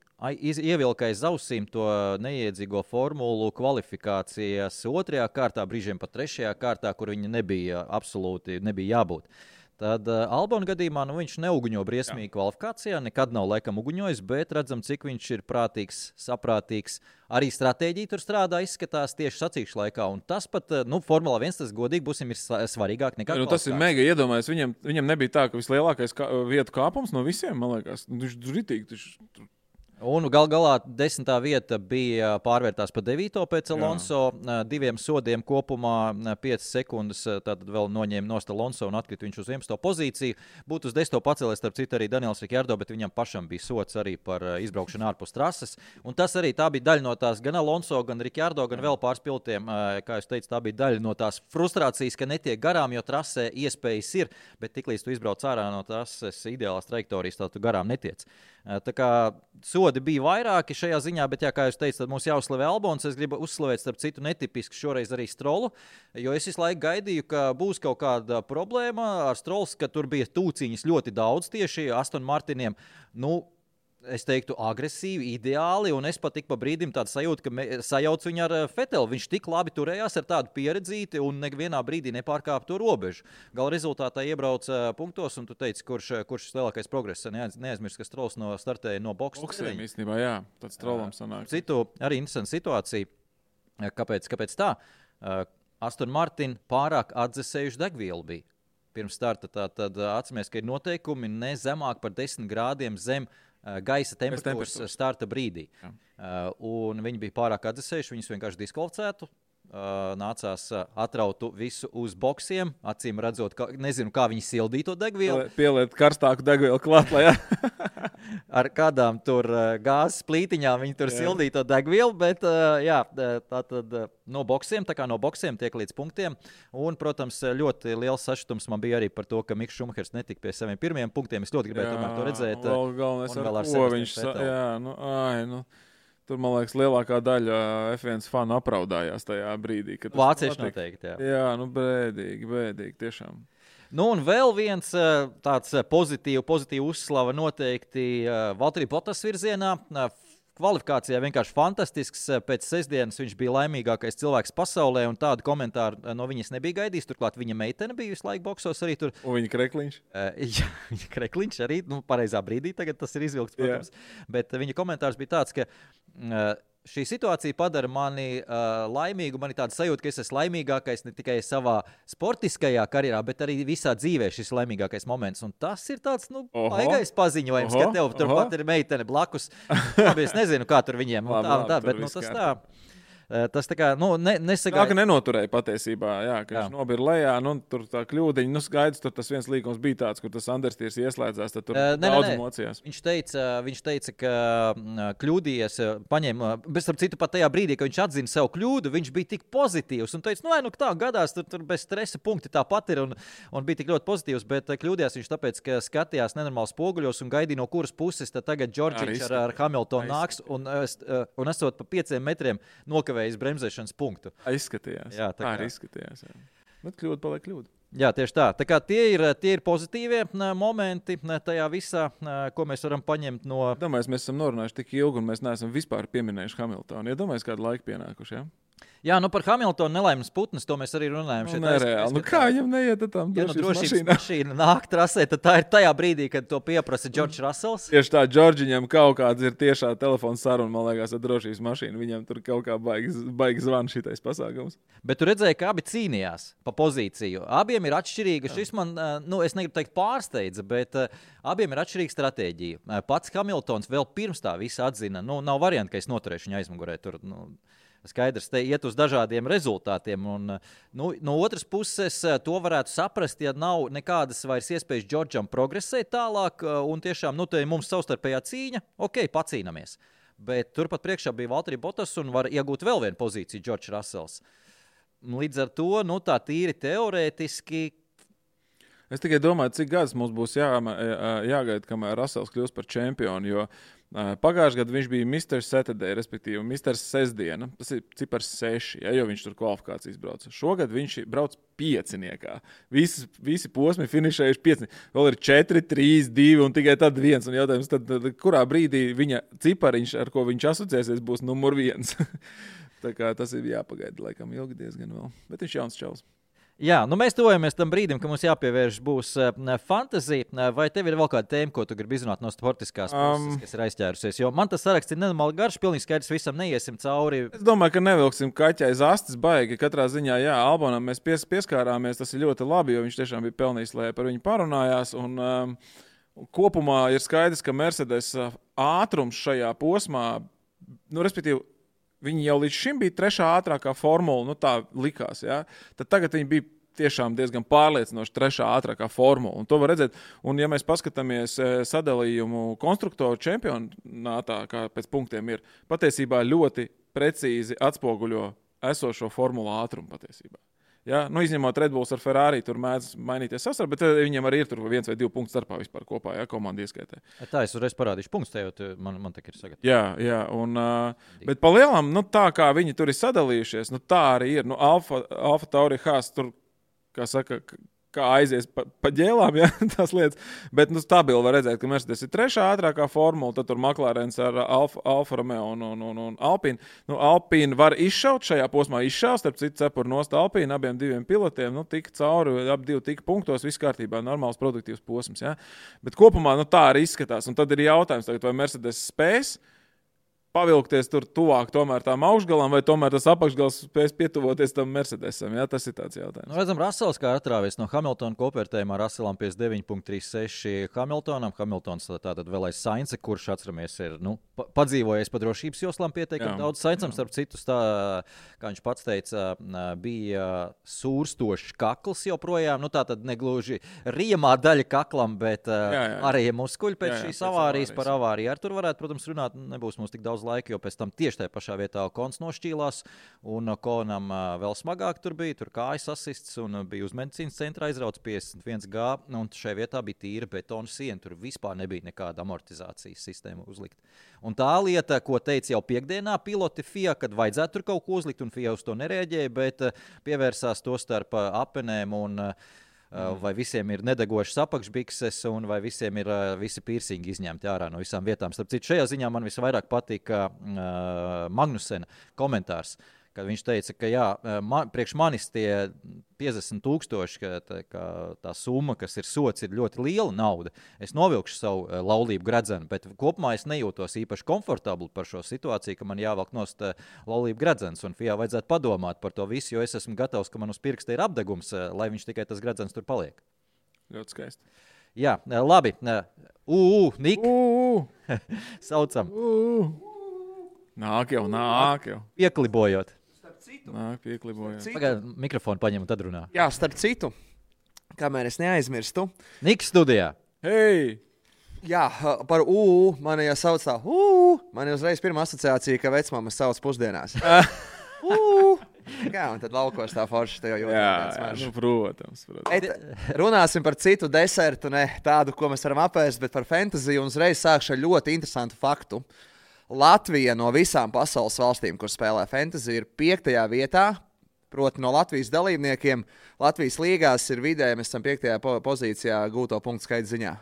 ievilka aiz ausīm to neiedzīgo formulu kvalifikācijas otrajā kārtā, brīžiem pat trešajā kārtā, kur viņa absolūti nebija jābūt. Tad Albona gadījumā viņš neuguņo briesmīgi kvalifikācijā, nekad nav laikam uguņojis, bet redzam, cik viņš ir prātīgs, saprātīgs. Arī stratēģija tur strādā, izskatās tieši sacīkšu laikā. Un tas pat, Formula 1, tas godīgi būsim, ir svarīgāk nekā kvalifikācija. Tas ir mega iedomājies. Viņam nebija tā, ka vislielākais vietu kāpums no visiem, man liekas. Viņš ritīgi. Un galā 10. vieta bija pārvērtās pa 9. pēc Alonso. 2 sodiem kopumā 5 sekundes. Tātad vēl noņēma nost Alonso un atkrita viņš uz 11. pozīciju. Būtu uz 10. pacēlies, starp citu, arī Daniels Ricciardo, bet viņam pašam bija sods arī par izbraukšanu ārpus trases. Un tas arī tā bija daļa no tās gan Alonso, gan Ricciardo, gan vēl pāris pilotiem. Kā jūs teicat, tā bija daļa no tās frustrācijas, ka netiek garām, jo trasē iespējas ir, bet tiklīdz tu izbrauc ārā no trases ideālās trajektorijas, tā tu garām netiec. Tā kā sodi bija vairāki šajā ziņā, bet, kā jūs teicat, tad mums jāuzslavē Albons. Es gribu uzslavēt, starp citu, netipisku šoreiz arī Strolu, jo es visu laiku gaidīju, ka būs kaut kāda problēma ar Strols, ka tur bija tūciņas ļoti daudz tieši Aston Martiniem. Nu, es teiktu, agresīvi, ideāli, un es pat tik pa brīdim tādu sajūtu, ka sajauc viņu ar Fetelu. Viņš tik labi turējās ar tādu pieredzīti un nevienā brīdī nepārkāpa to robežu. Gala rezultātā iebrauc punktos, un tu teici, kurš lielākais progress. Neaizmirst, ka Strols startēja no boksa. Boksiem īstenībā, jā, tāds Strolam sanāk. Citu, arī interesanta situācija. Kāpēc tā? Aston Martin pārāk atdzesējuši degvielu bija. Pirms starta tad atceramies, ka ir noteikumi ne zemāk par 10 grādiem zem gaisa temperatūras starta brīdī. Un viņi bija pārāk atdzesējuši, viņus vienkārši diskvalificētu. Nācās atrautu visu uz boksiem, acīm redzot, nezinu, kā viņi sildīja to degvielu. Pieliet karstāku degvielu klāt, lai ar kādām tur gāzes plītiņām viņi tur sildīja to degvielu, bet tā tad no boksiem tiek līdz punktiem. Un, protams, ļoti liels sašutums man bija arī par to, ka Miks Šumahers netika pie saviem pirmajiem punktiem. Es ļoti gribēju tomēr to redzēt. Galvenais ar ko viņš tur, man liekas, lielākā daļa F1 fanu apraudājās tajā brīdī. Vācieši noteikti, jā. Jā, bēdīgi, tiešām. Nu, un vēl viens tāds pozitīvu uzslava noteikti Valtteri Bottas virzienā. Kvalifikācijā vienkārši fantastisks. Pēc sestdienas viņš bija laimīgākais cilvēks pasaulē, un tādu komentāru no viņas nebija gaidījis. Turklāt viņa meitene bija visu laiku boksos arī tur. Un viņa krekliņš? Jā, viņa krekliņš arī, pareizā brīdī tagad tas ir izvilkts, protams. Bet viņa komentārs bija tāds, ka šī situācija padara mani laimīgu. Man ir tāda sajūta, ka es esmu laimīgākais ne tikai savā sportiskajā karjerā, bet arī visā dzīvē šis laimīgākais moments. Un tas ir tāds, baigais paziņojums, ka tev turpat ir meitene blakus. Es nezinu, kā tur viņiem. Bet tas tā. Tas tā kā, nesagāja. Tā, ka nenoturēja patiesībā, ka viņš nobira lejā, tur tā kļūdiņa, skaidrs, tur tas viens līgums bija tāds, kur tas Anderstīrs ieslēdzās, tad tur daudz mocījās. Viņš teica, ka kļūdījies, paņēma, bet starp citu pat tajā brīdī, kad viņš atzina savu kļūdu, viņš bija tik pozitīvs un teica, tā gadās, tur bez stresa punkti tāpat ir un bija tik ļoti pozitīvs, bet kļūdījās viņš tāpēc, ka skatījās nenormāli spoguļos un gaidīja no kuras puses, tad tagad Džordžiņš ar Hamiltonu nāks un esot pa 5 metriem nokavē bremzēšanas punktu. Izskatījās. Jā, tā arī izskatījās. Jā. Bet kļūda paliek kļūda. Jā, tieši tā. Tā kā tie ir pozitīvie momenti tajā visā, ko mēs varam paņemt no... Domāju, mēs esam norunājuši tik ilgi un mēs neesam vispār pieminējuši Hamiltonu. Iedomājies, kādu laiku pienākuši, jā? Jā, par Hamiltonu nelaimes putnes, to mēs arī runājam. Nereāli. Kā viņam neiet tam drošības mašīna nāk trasē, tad tā ir tajā brīdī, kad to pieprasa Džordžs Rasels. Tieši tā, Džordžiņam kaut kāds ir tiešā telefona saruna, man liekas, ar drošības mašīnu. Viņam tur kaut kā baigi zvan šitais pasākums. Bet tu redzēji, ka abi cīnījās pa pozīciju. Abiem ir atšķirīga. Šis man, es negribu teikt pārsteidza, bet abiem ir atšķirīga stratēģija. Pats Hamiltons vēl pirms tā visa atzina, nav varianti, ka es noturēšu viņu aizmugurē tur, skaidrs, te iet uz dažādiem rezultātiem. Un, no otras puses, to varētu saprast, ja nav nekādas vairs iespējas Džordžam progresēt tālāk. Un tiešām, te mums savstarpējā cīņa, pacīnamies. Bet turpat priekšā bija Valtteri Bottas un var iegūt vēl vienu pozīciju Džordžs Rasels. Līdz ar to, tā tīri teorētiski. Es tikai domāju, cik gadus mums būs jāgaida, kamēr Rasels kļūs par čempionu, jo pagājušajā gadā viņš bija Mr. Saturday, respektīvi Mr. Sestdiena. Tas ir cipars 6, jo viņš tur kvalifikācijas brauca. Šogad viņš brauc 5. Visi posmi finišējuši 5. Vēl ir 4, 3, 2 un tikai tad 1. Un jautājums, tad kurā brīdī viņa cipariņš, ar ko viņš asociēsies, būs numur 1. Tā kā tas ir jāpagaida, laikam ilgi diezgan vēl. Bet viņš jauns čalis. Jā, mēs tuvojamies tam brīdim, ka mums jāpievērš būs fantazija. Vai tev ir vēl kāda tēma, ko tu gribi izrunāt no sportiskās puses, kas ir aizķērusies? Jo man tas saraksts ir nenormāli garš, pilnīgi skaidrs, visam neiesim cauri. Es domāju, ka nevilksim kaķi aiz astes baigi. Katrā ziņā, Albonam mēs pieskārāmies, tas ir ļoti labi, jo viņš tiešām bija pelnījis, lai par viņu parunājās. Un kopumā ir skaidrs, ka Mercedes ātrums šajā posmā, respektīvi, viņi jau līdz šim bija 3. ātrākā formula, tā likās, ja? Tad tagad viņi bija tiešām diezgan pārliecinoši 3. ātrākā formula, un to var redzēt. Un ja mēs paskatāmies sadalījumu konstruktoru čempionātā, kā pēc punktiem ir, patiesībā ļoti precīzi atspoguļo esošo formulu ātrumu patiesībā. Ja? Izņemot Red Bulls ar Ferrari, tur mēdz mainīties sasar, bet viņiem arī ir tur 1 vai 2 punktu starpā vispār kopā, komanda ieskaitē. Tā, es uzreiz parādīšu punktus, tev man tā ir sagatavot. Jā, un, bet pa lielam, tā kā viņi tur ir sadalījušies, tā arī ir. Alfa Tauri Haas tur, kā saka, kā aizies pa ģēlām, tās lietas. Bet stabili var redzēt, ka Mercedes ir 3. ātrākā formula, tad tur McLarens ar Alfa Romeo un Alpine. Alpine var izšaut šajā posmā, starp citu cepur nost Alpine, abiem 2 pilotiem, tika cauri, ap 2 tika punktos, viss kārtībā, normāls produktīvs posms, ja? Bet kopumā, tā arī izskatās. Un tad ir jautājums tagad, vai Mercedes spēs pavilkties tur tuvāk tomēr tām augšgalām, vai tomēr tas apakšgals spēs pietuvoties tam Mercedesam? Jā, tas ir tāds jautājums. Redzam, Russells kā atrāvies no Hamiltona kopvērtējumā, Russellam 59,36 Hamiltonam. Hamiltons tātad vēl aiz Sainza, kurš, atceramies, ir padzīvojies pa drošības joslām pietiekami daudz. Sainzam, starp citu, kā viņš pats teica, bija sūrstošs kakls joprojām. Tātad negluži riemā daļa kaklam, bet arī muskuļi pēc šīs avārijas par avāriju. Ar tur varētu, protams, runāt, nebūs mums tik daudz laika, jo pēc tam tieši tajā pašā vietā Kons nošķīlās, un Konam vēl smagāk tur bija, tur kājas asists, un bija uz medicīnas centra aizrauts 51G, un šajā vietā bija tīra betona siena, tur vispār nebija nekāda amortizācijas sistēma uzlikt. Un tā lieta, ko teica jau piekdienā piloti FIA, kad vajadzētu tur kaut ko uzlikt, un FIA uz to nereaģēja, bet pievērsās to starp apenēm un vai visiem ir nedegošas apakšbikses, un vai visiem ir visi piercingi izņemti ārā no visām vietām. Starp citu, šajā ziņā man visvairāk patika Magnusena komentārs, kad viņš teica, ka priekš manis tie 50,000, ka tā summa, kas ir sots, ir ļoti liela nauda. Es novilkšu savu laulību gredzenu, bet kopumā es nejūtos īpaši komfortabli par šo situāciju, ka man jāvelk nost laulību gredzens, un FIA vajadzētu padomāt par to visu, jo es esmu gatavs, ka man uz pirksta ir apdegums, lai viņš tikai tas gredzens tur paliek. Ļoti skaisti. Jā, labi. Nik. Saucam. Nāk jau. Pieklibojot. Nāk, pieklibojot. Pagaid, mikrofonu paņem un tad runā. Jā, starp citu, kamēr es neaizmirstu. Niks studijā. Hei! Jā, par mani jau sauc tā. Man ir uzreiz pirmā asociācija, ka vecmāmas sauc pusdienās. Jā, un tad laukos tā forši tev jau Jā, protams. Runāsim par citu desertu, ne tādu, ko mēs varam apēst, bet par fantasiju, un uzreiz sākšu ar ļoti interesantu faktu. Latvija no visām pasaules valstīm, kur spēlē fantasiju, ir 5. vietā. Proti no Latvijas dalībniekiem Latvijas līgās ir vidēji, mēs esam 5. pozīcijā gūto punktu skaita ziņā.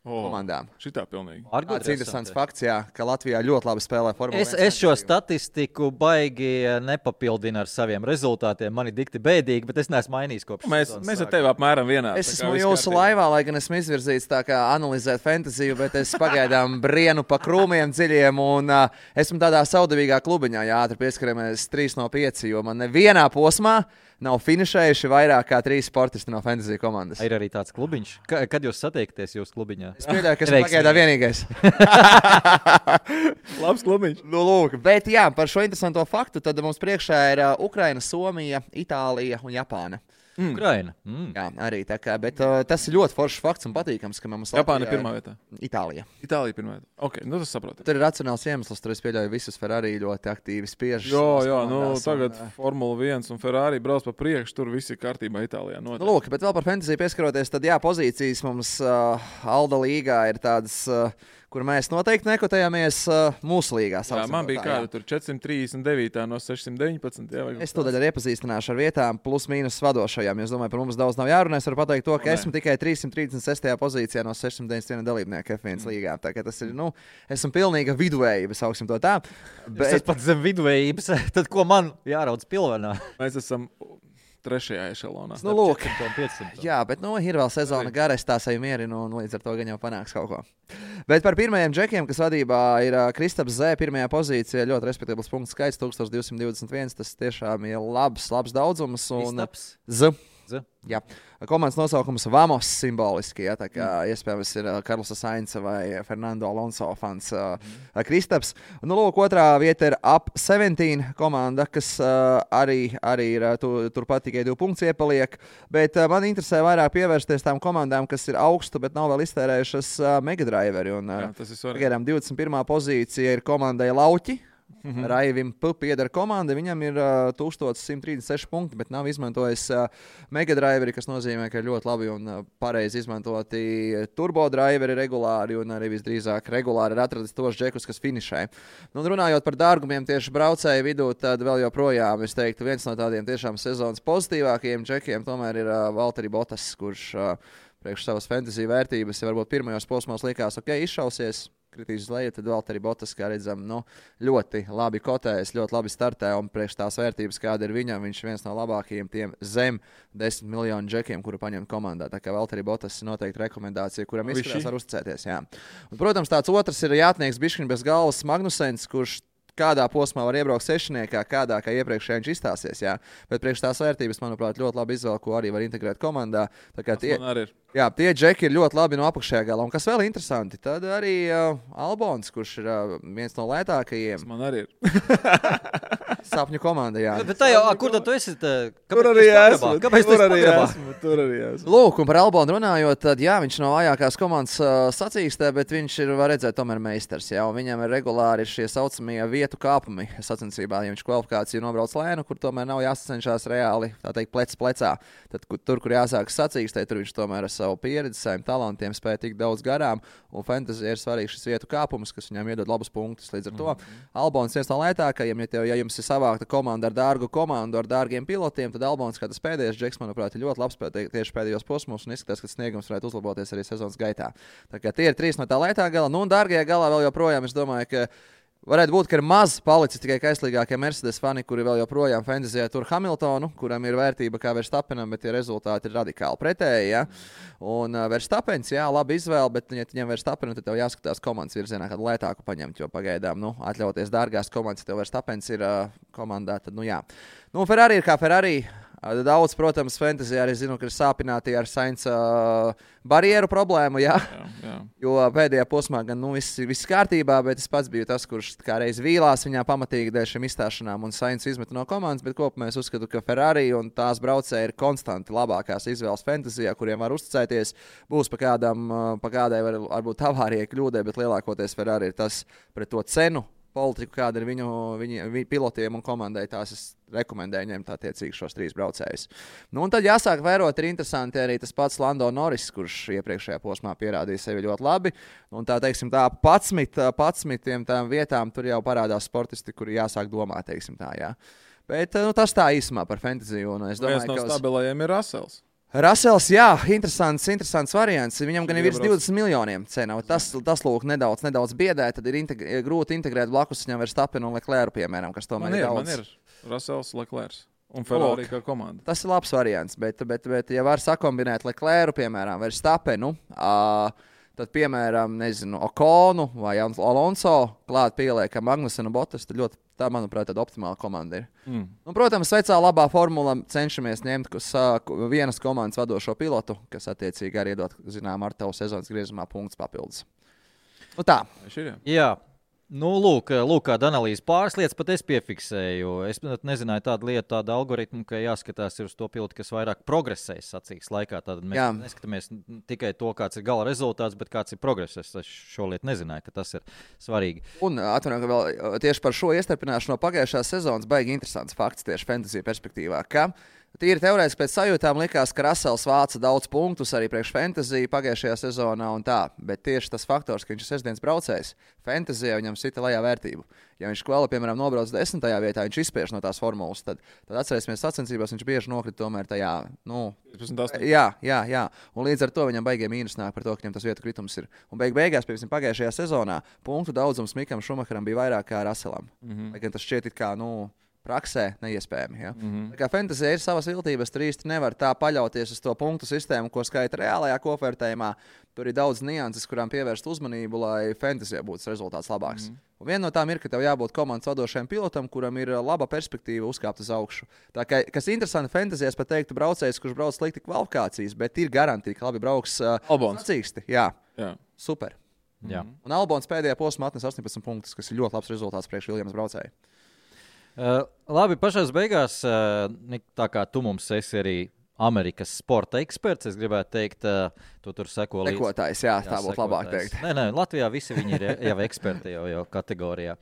Komandām. Šitā pilnīgi. Tas ir interesants fakts, ka Latvijā ļoti labi spēlē Formula 1. Es šo statistiku baigi nepapildinu ar saviem rezultātiem. Man ir dikti bēdīgi, bet es neesmu mainījis kopš. Mēs ar tevi apmēram vienādi. Es esmu jūsu laivā, lai gan esmu izvirzīts tā kā analizēt fantasiju, bet es pagaidām brienu pa krūmiem dziļiem un esmu tādā saudabīgā klubiņā. Jā, ātri pieskaramies 3 no 5, jo man nevienā posmā nav finišējuši vairāk kā 3 sportisti no fantasy komandas. Ir arī tāds klubiņš. Kad jūs satiekties jūsu klubiņā? Es pieļauju, ka esmu pagaidā vienīgais. Labs klubiņš. Lūk, bet jā, par šo interesanto faktu tad mums priekšā ir Ukraina, Somija, Itālija un Japāna. Ukraina. Jā, arī tā kā, bet tas ir ļoti foršs fakts un patīkams, ka mums Japāna ir pirmā vietā. Itālija. Itālija pirmā vietā. Ok, tas saprotu. Tur ir racionāls iemesls, tur es pieļauju visus Ferrari ļoti aktīvi spiež. Jā, tagad Formula 1 un Ferrari brauc pa priekšu, tur viss ir kārtībā Itālijā. Lūk, bet vēl par fantasiju pieskaroties, tad pozīcijas mums Alda līgā ir tādas, kur mēs noteikti nekotējāmies mūsu līgā. Jā, man bija kāda tur 439 no 619. Jā, es to arī iepazīstināšu ar vietām plus mīnus vadošajām. Es domāju, par mums daudz nav jārunā. Es varu pateikt to, ka esmu tikai 336. pozīcijā no 691 dalībnieku F1 līgā. Tā kā tas ir, esmu pilnīga viduvējība, sauksim to tā. Bet es pat zem viduvējības, tad ko man jāraudz pilvenā? Mēs esam 3. ešalonā. Lūk, jā, bet ir vēl sezona gara, es tā sevi mierinu, un līdz ar to gan jau panāks kaut ko. Bet par pirmajiem džekiem, kas vadībā ir Kristaps Z, pirmajā pozīcijā, ļoti respektabls punktu skaits, 1221, tas tiešām ir labs daudzums. Kristaps? Z. Jā. Komandas nosaukums Vamos simboliski, tā kā iespējams ir Karlosa Sainza vai Fernando Alonso fans Kristaps. Lūk, otrā vieta ir Up 17 komanda, kas arī ir turpat tikai 2 punktus iepaliek, bet man interesē vairāk pievērsties tām komandām, kas ir augstu, bet nav vēl iztērējušas Megadriveri. Pagaidām 21. pozīcija ir komandai Lauķi. Raivim pieder komanda, viņam ir 1136 punkti, bet nav izmantojis Megadriveri, kas nozīmē, ka ir ļoti labi un pareizi izmantoti turbodriveri regulāri un arī visdrīzāk regulāri ir atradis tos džekus, kas finišē. Runājot par dārgumiem tieši braucēju vidū, tad vēl joprojām, es teiktu, viens no tādiem tiešām sezonas pozitīvākajiem džekiem tomēr ir Valtteri Bottas, kurš priekš savas fantasy vērtības varbūt pirmajos posmos likās, izšausies. Kritīs uz leju, tad vēl arī Bottas, kā redzam, ļoti labi kotējas, ļoti labi startē, un priekš tās vērtības, kāda ir viņam, viņš ir viens no labākajiem tiem zem 10 miljonu džekiem, kuru paņemt komandā. Tā kā vēl arī Bottas ir noteikti rekomendācija, kuram izskatās var uzticēties. Jā. Un, protams, tāds otrs ir jātnieks bišķiņ bez galvas Magnusens, kurš kādā posmā var iebraukt sešniekā, kādā kā iepriekšējā viņš izstāsies. Jā. Bet priekš tās vērtības, manuprāt, ļoti labi izvēle, ko arī var integrēt komandā. Tā kā tie džeki ir ļoti labi no apakšējā galā. Un kas vēl interesanti, tad arī Albons, kurš ir viens no lētākajiem. Man arī ir. Sapņu komanda, jā. Bet tā jau, kur tad tu esi? Tur arī esmu. Kāpēc Tur arī esmu. Lūk, un par Albonu runājot, tad jā, viņš nav vājākās komandas sacīkstē, bet viņš ir, var redzēt, tomēr meistars. Jā, un viņam ir regulāri šie saucamie vietu kāpumi sacensībā. Ja viņš kvalifikāciju nobrauc lēnu, kur tomēr nav jāsacenšās reāli, tā teikt, plecs plecā. Tad tur, kur jāsākas sacīkstē, tur viņš tomēr ar savu pieredzi, saviem talantiem spēja tik daudz garām. Un fantasy ir svarīgs šis vietu kāpums, kas viņam iedod labus punktus. Līdz ar to Albons viens no lētākajiem, ja jums ir savākta komanda ar dārgu komandu, ar dārgiem pilotiem, tad Albons, kā tas pēdējais džeks, manuprāt, ir ļoti labs tieši pēdējos posmos un izskatās, ka sniegums varētu uzlaboties arī sezonas gaitā. Tā kā tie ir 3 no tā lētā gala. Nu, un dārgajā galā vēl joprojām, es domāju, ka varētu būt, ka ir maz palicis tikai kaislīgākie Mercedes fani, kuri vēl joprojām fantasyjā tur Hamiltonu, kuram ir vērtība kā Verstappenam, bet tie rezultāti ir radikāli pretēji. Ja? Un Verstappens, jā, labi izvēle, bet, ja ņem Verstappenu, tad tev jāskatās komandas virzienā, kādu lētāku paņemt, jo pagaidām, atļauties dārgās komandas, ja tev Verstappens ir komandā, tad, jā. Nu, Ferrari ir kā Ferrari. Daudz, protams, fantasy arī zinu, ka ir sāpināti ar Sainza barjeru problēmu, jā. Jo pēdējā posmā gan viss kārtībā, bet es pats biju tas, kurš kā reiz vīlās viņā pamatīgi dēļ šiem izstāšanām un Sainz izmeta no komandas, bet kopumā es uzskatu, ka Ferrari un tās braucēji ir konstanti labākās izvēles fantasyjā, kuriem var uzticēties. Būs pa kādai varbūt avārijai kļūdai, bet lielākoties Ferrari ir tas pret to cenu politiku, kāda ir viņu pilotiem un komandai, tās es rekomendēju ņemt attiecīgi šos 3 braucējus. Nu, un tad jāsāk vērot, ir interesanti arī tas pats Lando Norris, kurš iepriekšējā posmā pierādīja sevi ļoti labi. Un tā, teiksim, tā 11 tām vietām tur jau parādās sportisti, kuri jāsāk domāt, teiksim tā, jā. Bet tas tā īsumā par fantasy. Un es domāju, viens no stabilajiem ir Russells. Russells, jā, interesants variants. Viņam gan ir virs 20 miljoniem cena. Tas lūk, nedaudz biedē, tad ir grūti integrēt blakus viņam Verstappenu un Leclercu, piemēram, kas tomēr ir daudz. Man ir Russells, Leclerc un Ferrari kā komanda. Tas ir labs variants, bet ja var sakombinēt Leclercu, piemēram, Verstappenu, tad, piemēram, Okonu vai Alonso klāt pieliekam Magnusenu Bottas, tad tā, manuprāt, tāda optimāla komanda ir. Un, protams, vecā labā formula cenšamies ņemt vienas komandas vadošo pilotu, kas attiecīgi arī iedod, ar tavu sezonas griezumā punktus papildus. Nu tā. Jā. Nu, lūk, kāda analīze. Pāris lietas pat es piefiksēju. Es nezināju tādu algoritmu, ka jāskatās uz to pilotu, kas vairāk progresēs sacīks laikā. Tad mēs neskatāmies tikai to, kāds ir gala rezultāts, bet kāds ir progress. Es šo lietu nezināju, ka tas ir svarīgi. Un atvainojiet, ka vēl tieši par šo iestarpināšanu no pagājušās sezonas baigi interesants fakts tieši fantasy perspektīvā, ka tīri teorētiski pēc sajūtām likās, ka Russells vāca daudz punktus arī priekš fantasy pagājušajā sezonā un tā, bet tieši tas faktors, ka viņš ir sestdienas braucējs, fantasyjā viņam sita lejā vērtību. Ja viņš kvali, piemēram, nobrauc 10. vietā, viņš izspiež no tās formulas, tad atcerēsimies sacensībās, viņš bieži nokrita tomēr tajā, 15. Jā. Un līdz ar to viņam baigie mīnus nāk par to, ka viņam tas vietu kritums ir. Un beigās, piemēram, pagājušajā sezonā punktu daudzums Mikam Šumacheram bija vairāk kā Russellam. Lai gan tas šķiet it kā, praksē neiespējami. Ja? Tā kā fantasy ir savas viltības, tur īsti nevar tā paļauties uz to punktu sistēmu, ko skaita reālajā kopvērtējumā. Tur ir daudz nianses, kurām pievērst uzmanību, lai fantasy būtu rezultāts labāks. Un viena no tām ir, ka tev jābūt komandas vadošajam pilotam, kuram ir laba perspektīva uzkāpt uz augšu. Tā kā, kas interesanti fantasy, es pat teiktu, braucējs, kurš brauc slikti kvalifikācijas, bet ir garantīva, ka labi brauks sacīksti. Jā. Super. Jā. Un Albons pēdējā posmā atnes 18 punktus, kas ir ļoti labs rezultāts priekš Williams braucēju. Labi, pašās beigās, tā kā tu mums esi arī Amerikas sporta eksperts, es gribētu teikt, tu tur seko līdzi. Sekotājs, jā, tā būtu labāk teikt. Nē, Latvijā visi viņi ir jau eksperti jau kategorijā.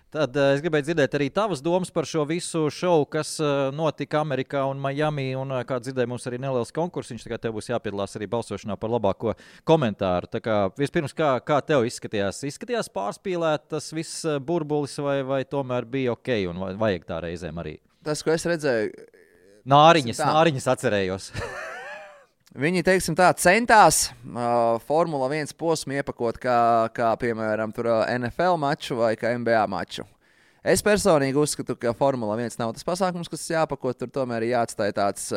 Tad es gribēju dzirdēt arī tavas domas par šo visu šovu, kas notika Amerikā un Miami, un kā dzirdēju, mums arī neliels konkursiņš, tā kā tev būs jāpiedalās arī balsošanā par labāko komentāru. Tā kā vispirms, kā tev izskatījās? Izskatījās pārspīlēt tas viss burbulis vai tomēr bija ok un vajag tā reizēm arī? Tas, ko es redzēju... Nāriņas atcerējos. Viņi, teiksim tā, centās Formula 1 posmu iepakot kā piemēram, tur NFL maču vai kā NBA maču. Es personīgi uzskatu, ka Formula 1 nav tas pasākums, kas jāpako, tur tomēr ir jāatstāj tāds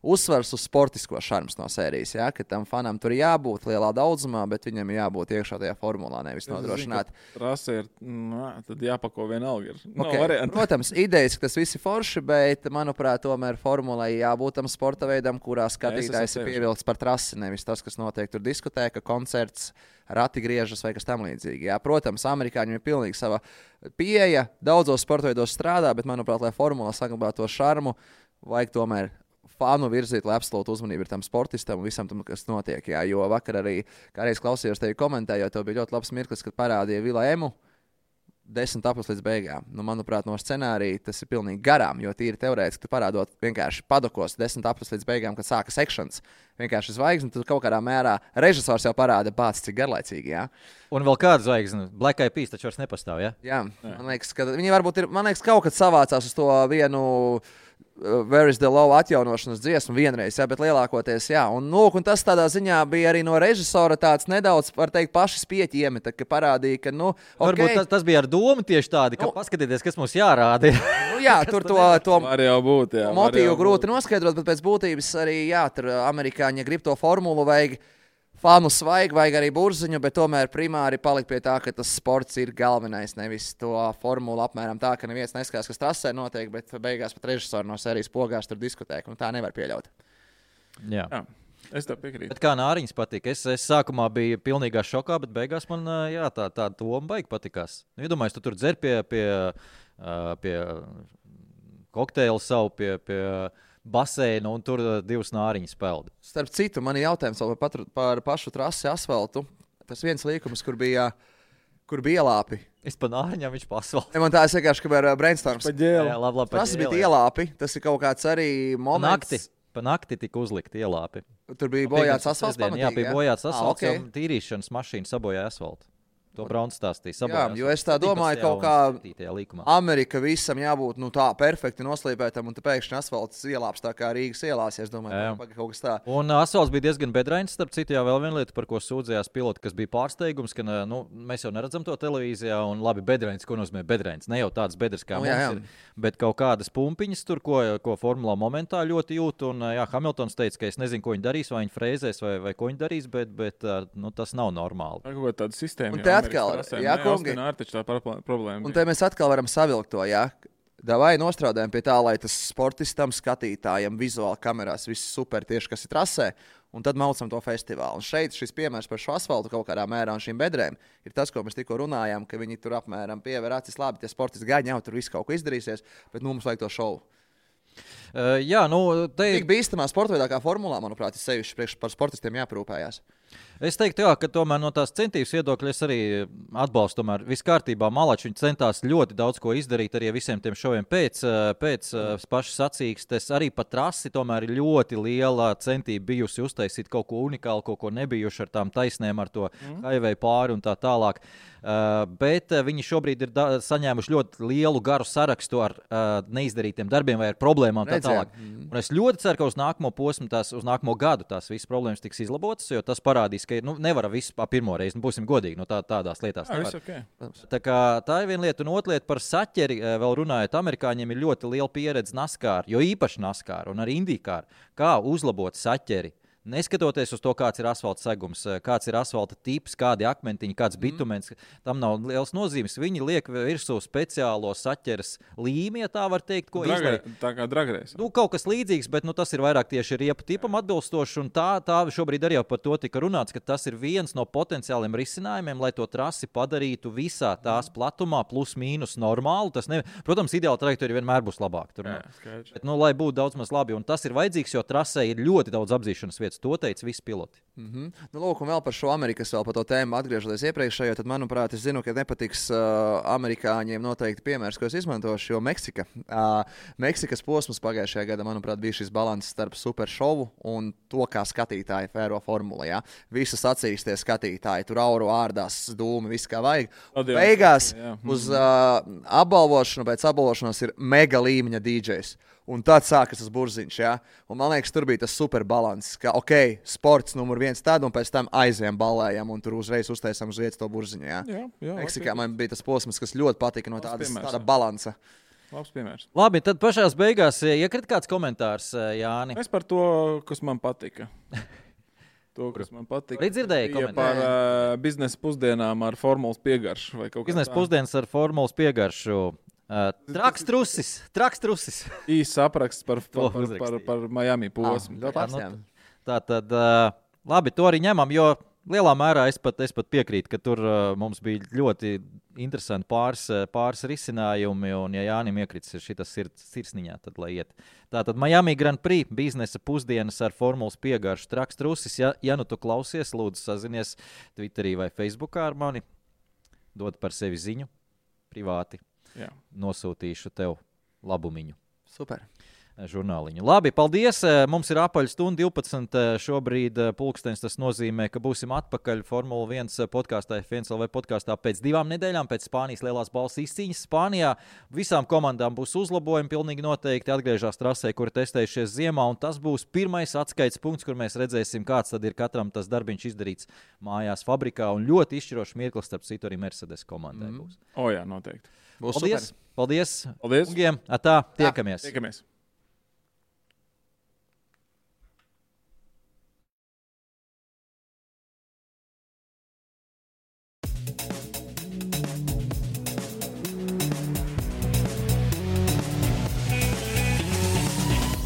uzsvars uz sportisko šarms no sērijas, ja? Ka tam fanam tur jābūt lielā daudzumā, bet viņam jābūt iekšā tajā formulā, nevis nodrošināt. Rasa ir, tad jāpako vienalga ir. Protams, idejas, ka tas viss ir forši, bet, manuprāt, tomēr formulai jābūt tam sporta veidam, kurā skatītājs ir pievilkts par trasi, nevis tas, kas notiek tur diskutē, ka koncerts rati griežas vai kas tam līdzīgi. Jā, protams, amerikāņiem ir pilnīgi sava pieeja, daudzos sporta veidos strādā, bet, manuprāt, lai formula saglabātu to šarmu, vajag tomēr fanu virzīt, lai absolūti uzmanība ir tam sportistam un visam tam, kas notiek. Jā, jo vakar arī, kā reiz klausījos tevi komentējot, tev bija ļoti labs mirklis, kad parādīja Vila Emu 10 aplis līdz beigām. Nu, manuprāt, no scenārija tas ir pilnīgi garām, jo tīri teorētiski tu parādot vienkārši padokos 10 aplis līdz beigām, kad sākas sekšanas. Vienkārši zvaigzne, tad kaut kādā mērā režisors jau parāda bāc, cik garlaicīgi, jā. Un vēl kāda zvaigzne? Black Eyed Peas taču vairs nepastāv, jā? Jā, man liekas, ka viņi varbūt ir, kaut kad savācās uz to vienu Where is the Love atjaunošanas dziesmu vienreiz, jā, bet lielākoties, jā. Un tas tādā ziņā bija arī no režisora tāds nedaudz, var teikt, paši spieķi iemeta, ka parādīja, ka, Varbūt tas bija ar domu tieši tādi, ka paskatieties, kas mums jārāda. Jā, tur to var jau būt, jā. Motīvu grūti noskaidrot, bet pēc būtības arī, jā, tur amerikāņi, ja grib to formulu, vajag fanu svaigi, vajag arī burziņu, bet tomēr primāri palikt pie tā, ka tas sports ir galvenais, nevis to formulu apmēram tā, ka neviens neskatās, kas trasē notiek, bet beigās pat režisori no sērijas pogās tur diskutē, un tā nevar pieļaut. Jā. Es tev piekrītu. Bet kā Nāriņš patika? Es sākumā biju pilnīgā šokā, bet beigās man tā doma baigi patikās. Iedomājos, tu tur dzer pie kokteila savu, pie baseinu, un tur 2 nāriņas peld. Starp citu, man ir jautājums par pašu trasi asfaltu. Tas viens līkums, kur bija ielāpi. Es pa nāriņām, viņš pa asfaltu. Man tā vienkārši, ka bija brainstorms. Jā, labi, tas bija ielāpi. Tas ir kaut kāds arī moments. Pa nakti tika uzlikti ielāpi. Tur bija bojāts asfalts pamatīgi, jā? Jā, bija bojāts asfalts, okay. Un tīrīšanas mašīna sabojāja asfaltu. To Brauns stāstīja. Jā, jo es tā domāju, kaut kā Amerika visam jābūt tā perfekti noslīpētam, un te pēkšņi asfalts ielāps tā kā Rīgas ielās, es domāju, kaut kas tā. Un asfalts bija diezgan bedrains, starp citu, jā, vēl viena lieta, par ko sūdzējās piloti, kas bija pārsteigums, ka mēs jau neredzam to televīzijā, un labi, bedrains, ko nozīmē bedrains? Ne jau tāds bedrs kā mums ir, bet kaut kādas pumpiņas tur, ko formulā momentā ļoti jūt, un jā, Hamiltons teica, ka es nezinu, ko viņi darīs, vai viņi frēzēs, vai ko viņi darīs, bet tas nav normāli. Un te mēs atkal varam savilkt to, jā. Davai nostrādājam pie tā, lai tas sportistam, skatītājam, vizuāli kamerās viss super tieši, kas ir trasē, un tad maucam to festivālu. Un šeit šis piemērs par šo asfaltu kaut kādā mērā un šīm bedrēm ir tas, ko mēs tikko runājām, ka viņi tur apmēram piever acis labi, tie sportisti gaļi jau tur viss kaut ko izdarīsies, bet mums vajag to šovu. Jā, Tik bīstamā sporta veidā kā formulā, manuprāt, ir sevišķi priekš par sportistiem jāprūpējās. Es teiktu, jā, ka tomēr no tās centības viedokļa es arī atbalstu. Tomēr viss kārtībā. Malači viņi centās ļoti daudz ko izdarīt arī visiem tiem šoviem pēc pašas sacīkstes. Arī pa trasi tomēr ir ļoti liela centība bijusi uztaisīt kaut ko unikālu, kaut ko nebijuši ar tām taisnēm, ar to highway pāri un tā tālāk. Bet viņi šobrīd ir saņēmuši ļoti lielu garu sarakstu ar neizdarītiem darbiem vai ar problēmām tā tālāk. Un es ļoti ceru, ka uz nākamo posmu, uz nākamo gadu tās visas problēmas tiks izlabotas, jo tas parādīs, ka nevar visu pa pirmo reizi, būsim godīgi, tādās lietās nevar. Okay. Tā ir viena lieta, un otra lieta par saķeri, vēl runājot, amerikāņiem ir ļoti liela pieredze NASCAR, jo īpaši NASCAR un arī IndyCar, kā uzlabot saķeri. Neskatoties uz to, kāds ir asfalta segums, kāds ir asfalta tips, kādi akmentiņi, kāds bitumens, tam nav liels nozīmes. Viņi liek virsū speciālo saķeres līmi, ja tā var teikt, ko izliek. Tā kā dragreis. Kaut kas līdzīgs, bet tas ir vairāk tieši riepu tipam atbilstoši, un tā šobrīd arī jau par to tika runāts, ka tas ir viens no potenciāliem risinājumiem, lai to trasi padarītu visā tās platumā plus mīnus normālu. Protams, ideāla trajektorija vienmēr būs labāka. Bet, lai būtu daudz maz labi, un tas ir vajadzīgs, jo trasē ir ļoti daudz apzīšanas vietas. To teica visi piloti. Lūk, un vēl par šo Amerikas vēl par to tēmu atgriežoties iepriekšējo, tad, manuprāt, es zinu, ka nepatiks amerikāņiem noteikti piemērs, ko es izmantošu, jo Meksikas posms pagājušajā gadā, manuprāt, bija šis balans starp super šovu un to, kā skatītāji fēro formula, jā. Visi sacīstie skatītāji, tur auru ārdās, dūmi, viss kā vajag. Beigās uz apbalvošanu, pēc apbalvošanas ir mega līmeņa DJs. Un tad sākas tas burziņš, jā. Un man liekas, tur bija tas super balans, ka, sports numur 1 tad, un pēc tam aizvien ballējam, un tur uzreiz uztaisam uz vietas to burziņu, jā. Jā, Meksikā man bija tas posms, kas ļoti patika no tāda balansa. Labs piemērs. Labi, tad pašās beigās iekrit kāds komentārs, Jāni. Es par to, kas man patika. To, kas man patika. Arī dzirdēju komentāru. Par biznesa pusdienām ar formulas piegaršu. Biznesa pusdienas ar formulas piegaršu. Traks trusis. Īsts apraksts par Miami posmu. Tā tad, labi, to arī ņemam, jo lielā mērā es pat piekrītu, ka tur mums bija ļoti interesanti pāris risinājumi, un ja Jānim iekrits šitas sirsniņā, tad lai iet. Tātad Miami Grand Prix biznesa pusdienas ar formulas piegaršu Traks trusis. Ja nu tu klausies, lūdzu sazinies Twitterī vai Facebookā ar mani, dod par sevi ziņu privāti. Jā. Nosūtīšu tev labumiņu. Super. Žurnāliņu. Labi, paldies. Mums ir apaļ stunda 12 šobrīd pulkstenis. Tas nozīmē, ka būsim atpakaļ Formula 1 podkāstā, F1LV podkāstā pēc 2 nedēļām, pēc Spānijas lielās balvas izcīņas. Spānijā visām komandām būs uzlabojumi, pilnīgi noteikti atgriežas trasē, kur testējušies ziemā, un tas būs pirmais atskaites punkts, kur mēs redzēsim, kāds tad ir katram tas darbiņš izdarīts mājās fabrikā, un ļoti izšķirošs mirklis, starp citu arī Mercedes komandai būs. Jā, noteikti. Paldies. Paldies. Paldies. Ungiem. Atā, tiekamies. Tiekamies.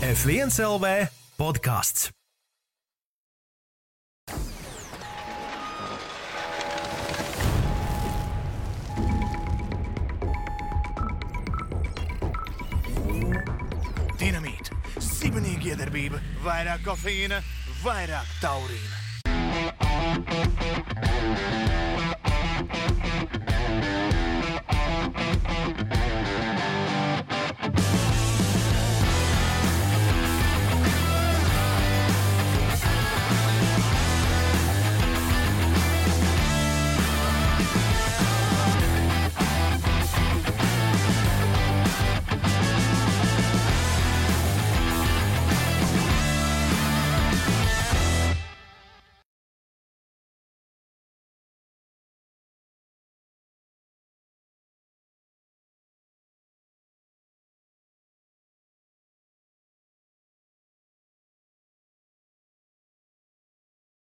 F1LV podkāsts. Dinamīta, sibenīga iedarbība, vairāk kofeīna, vairāk taurīna.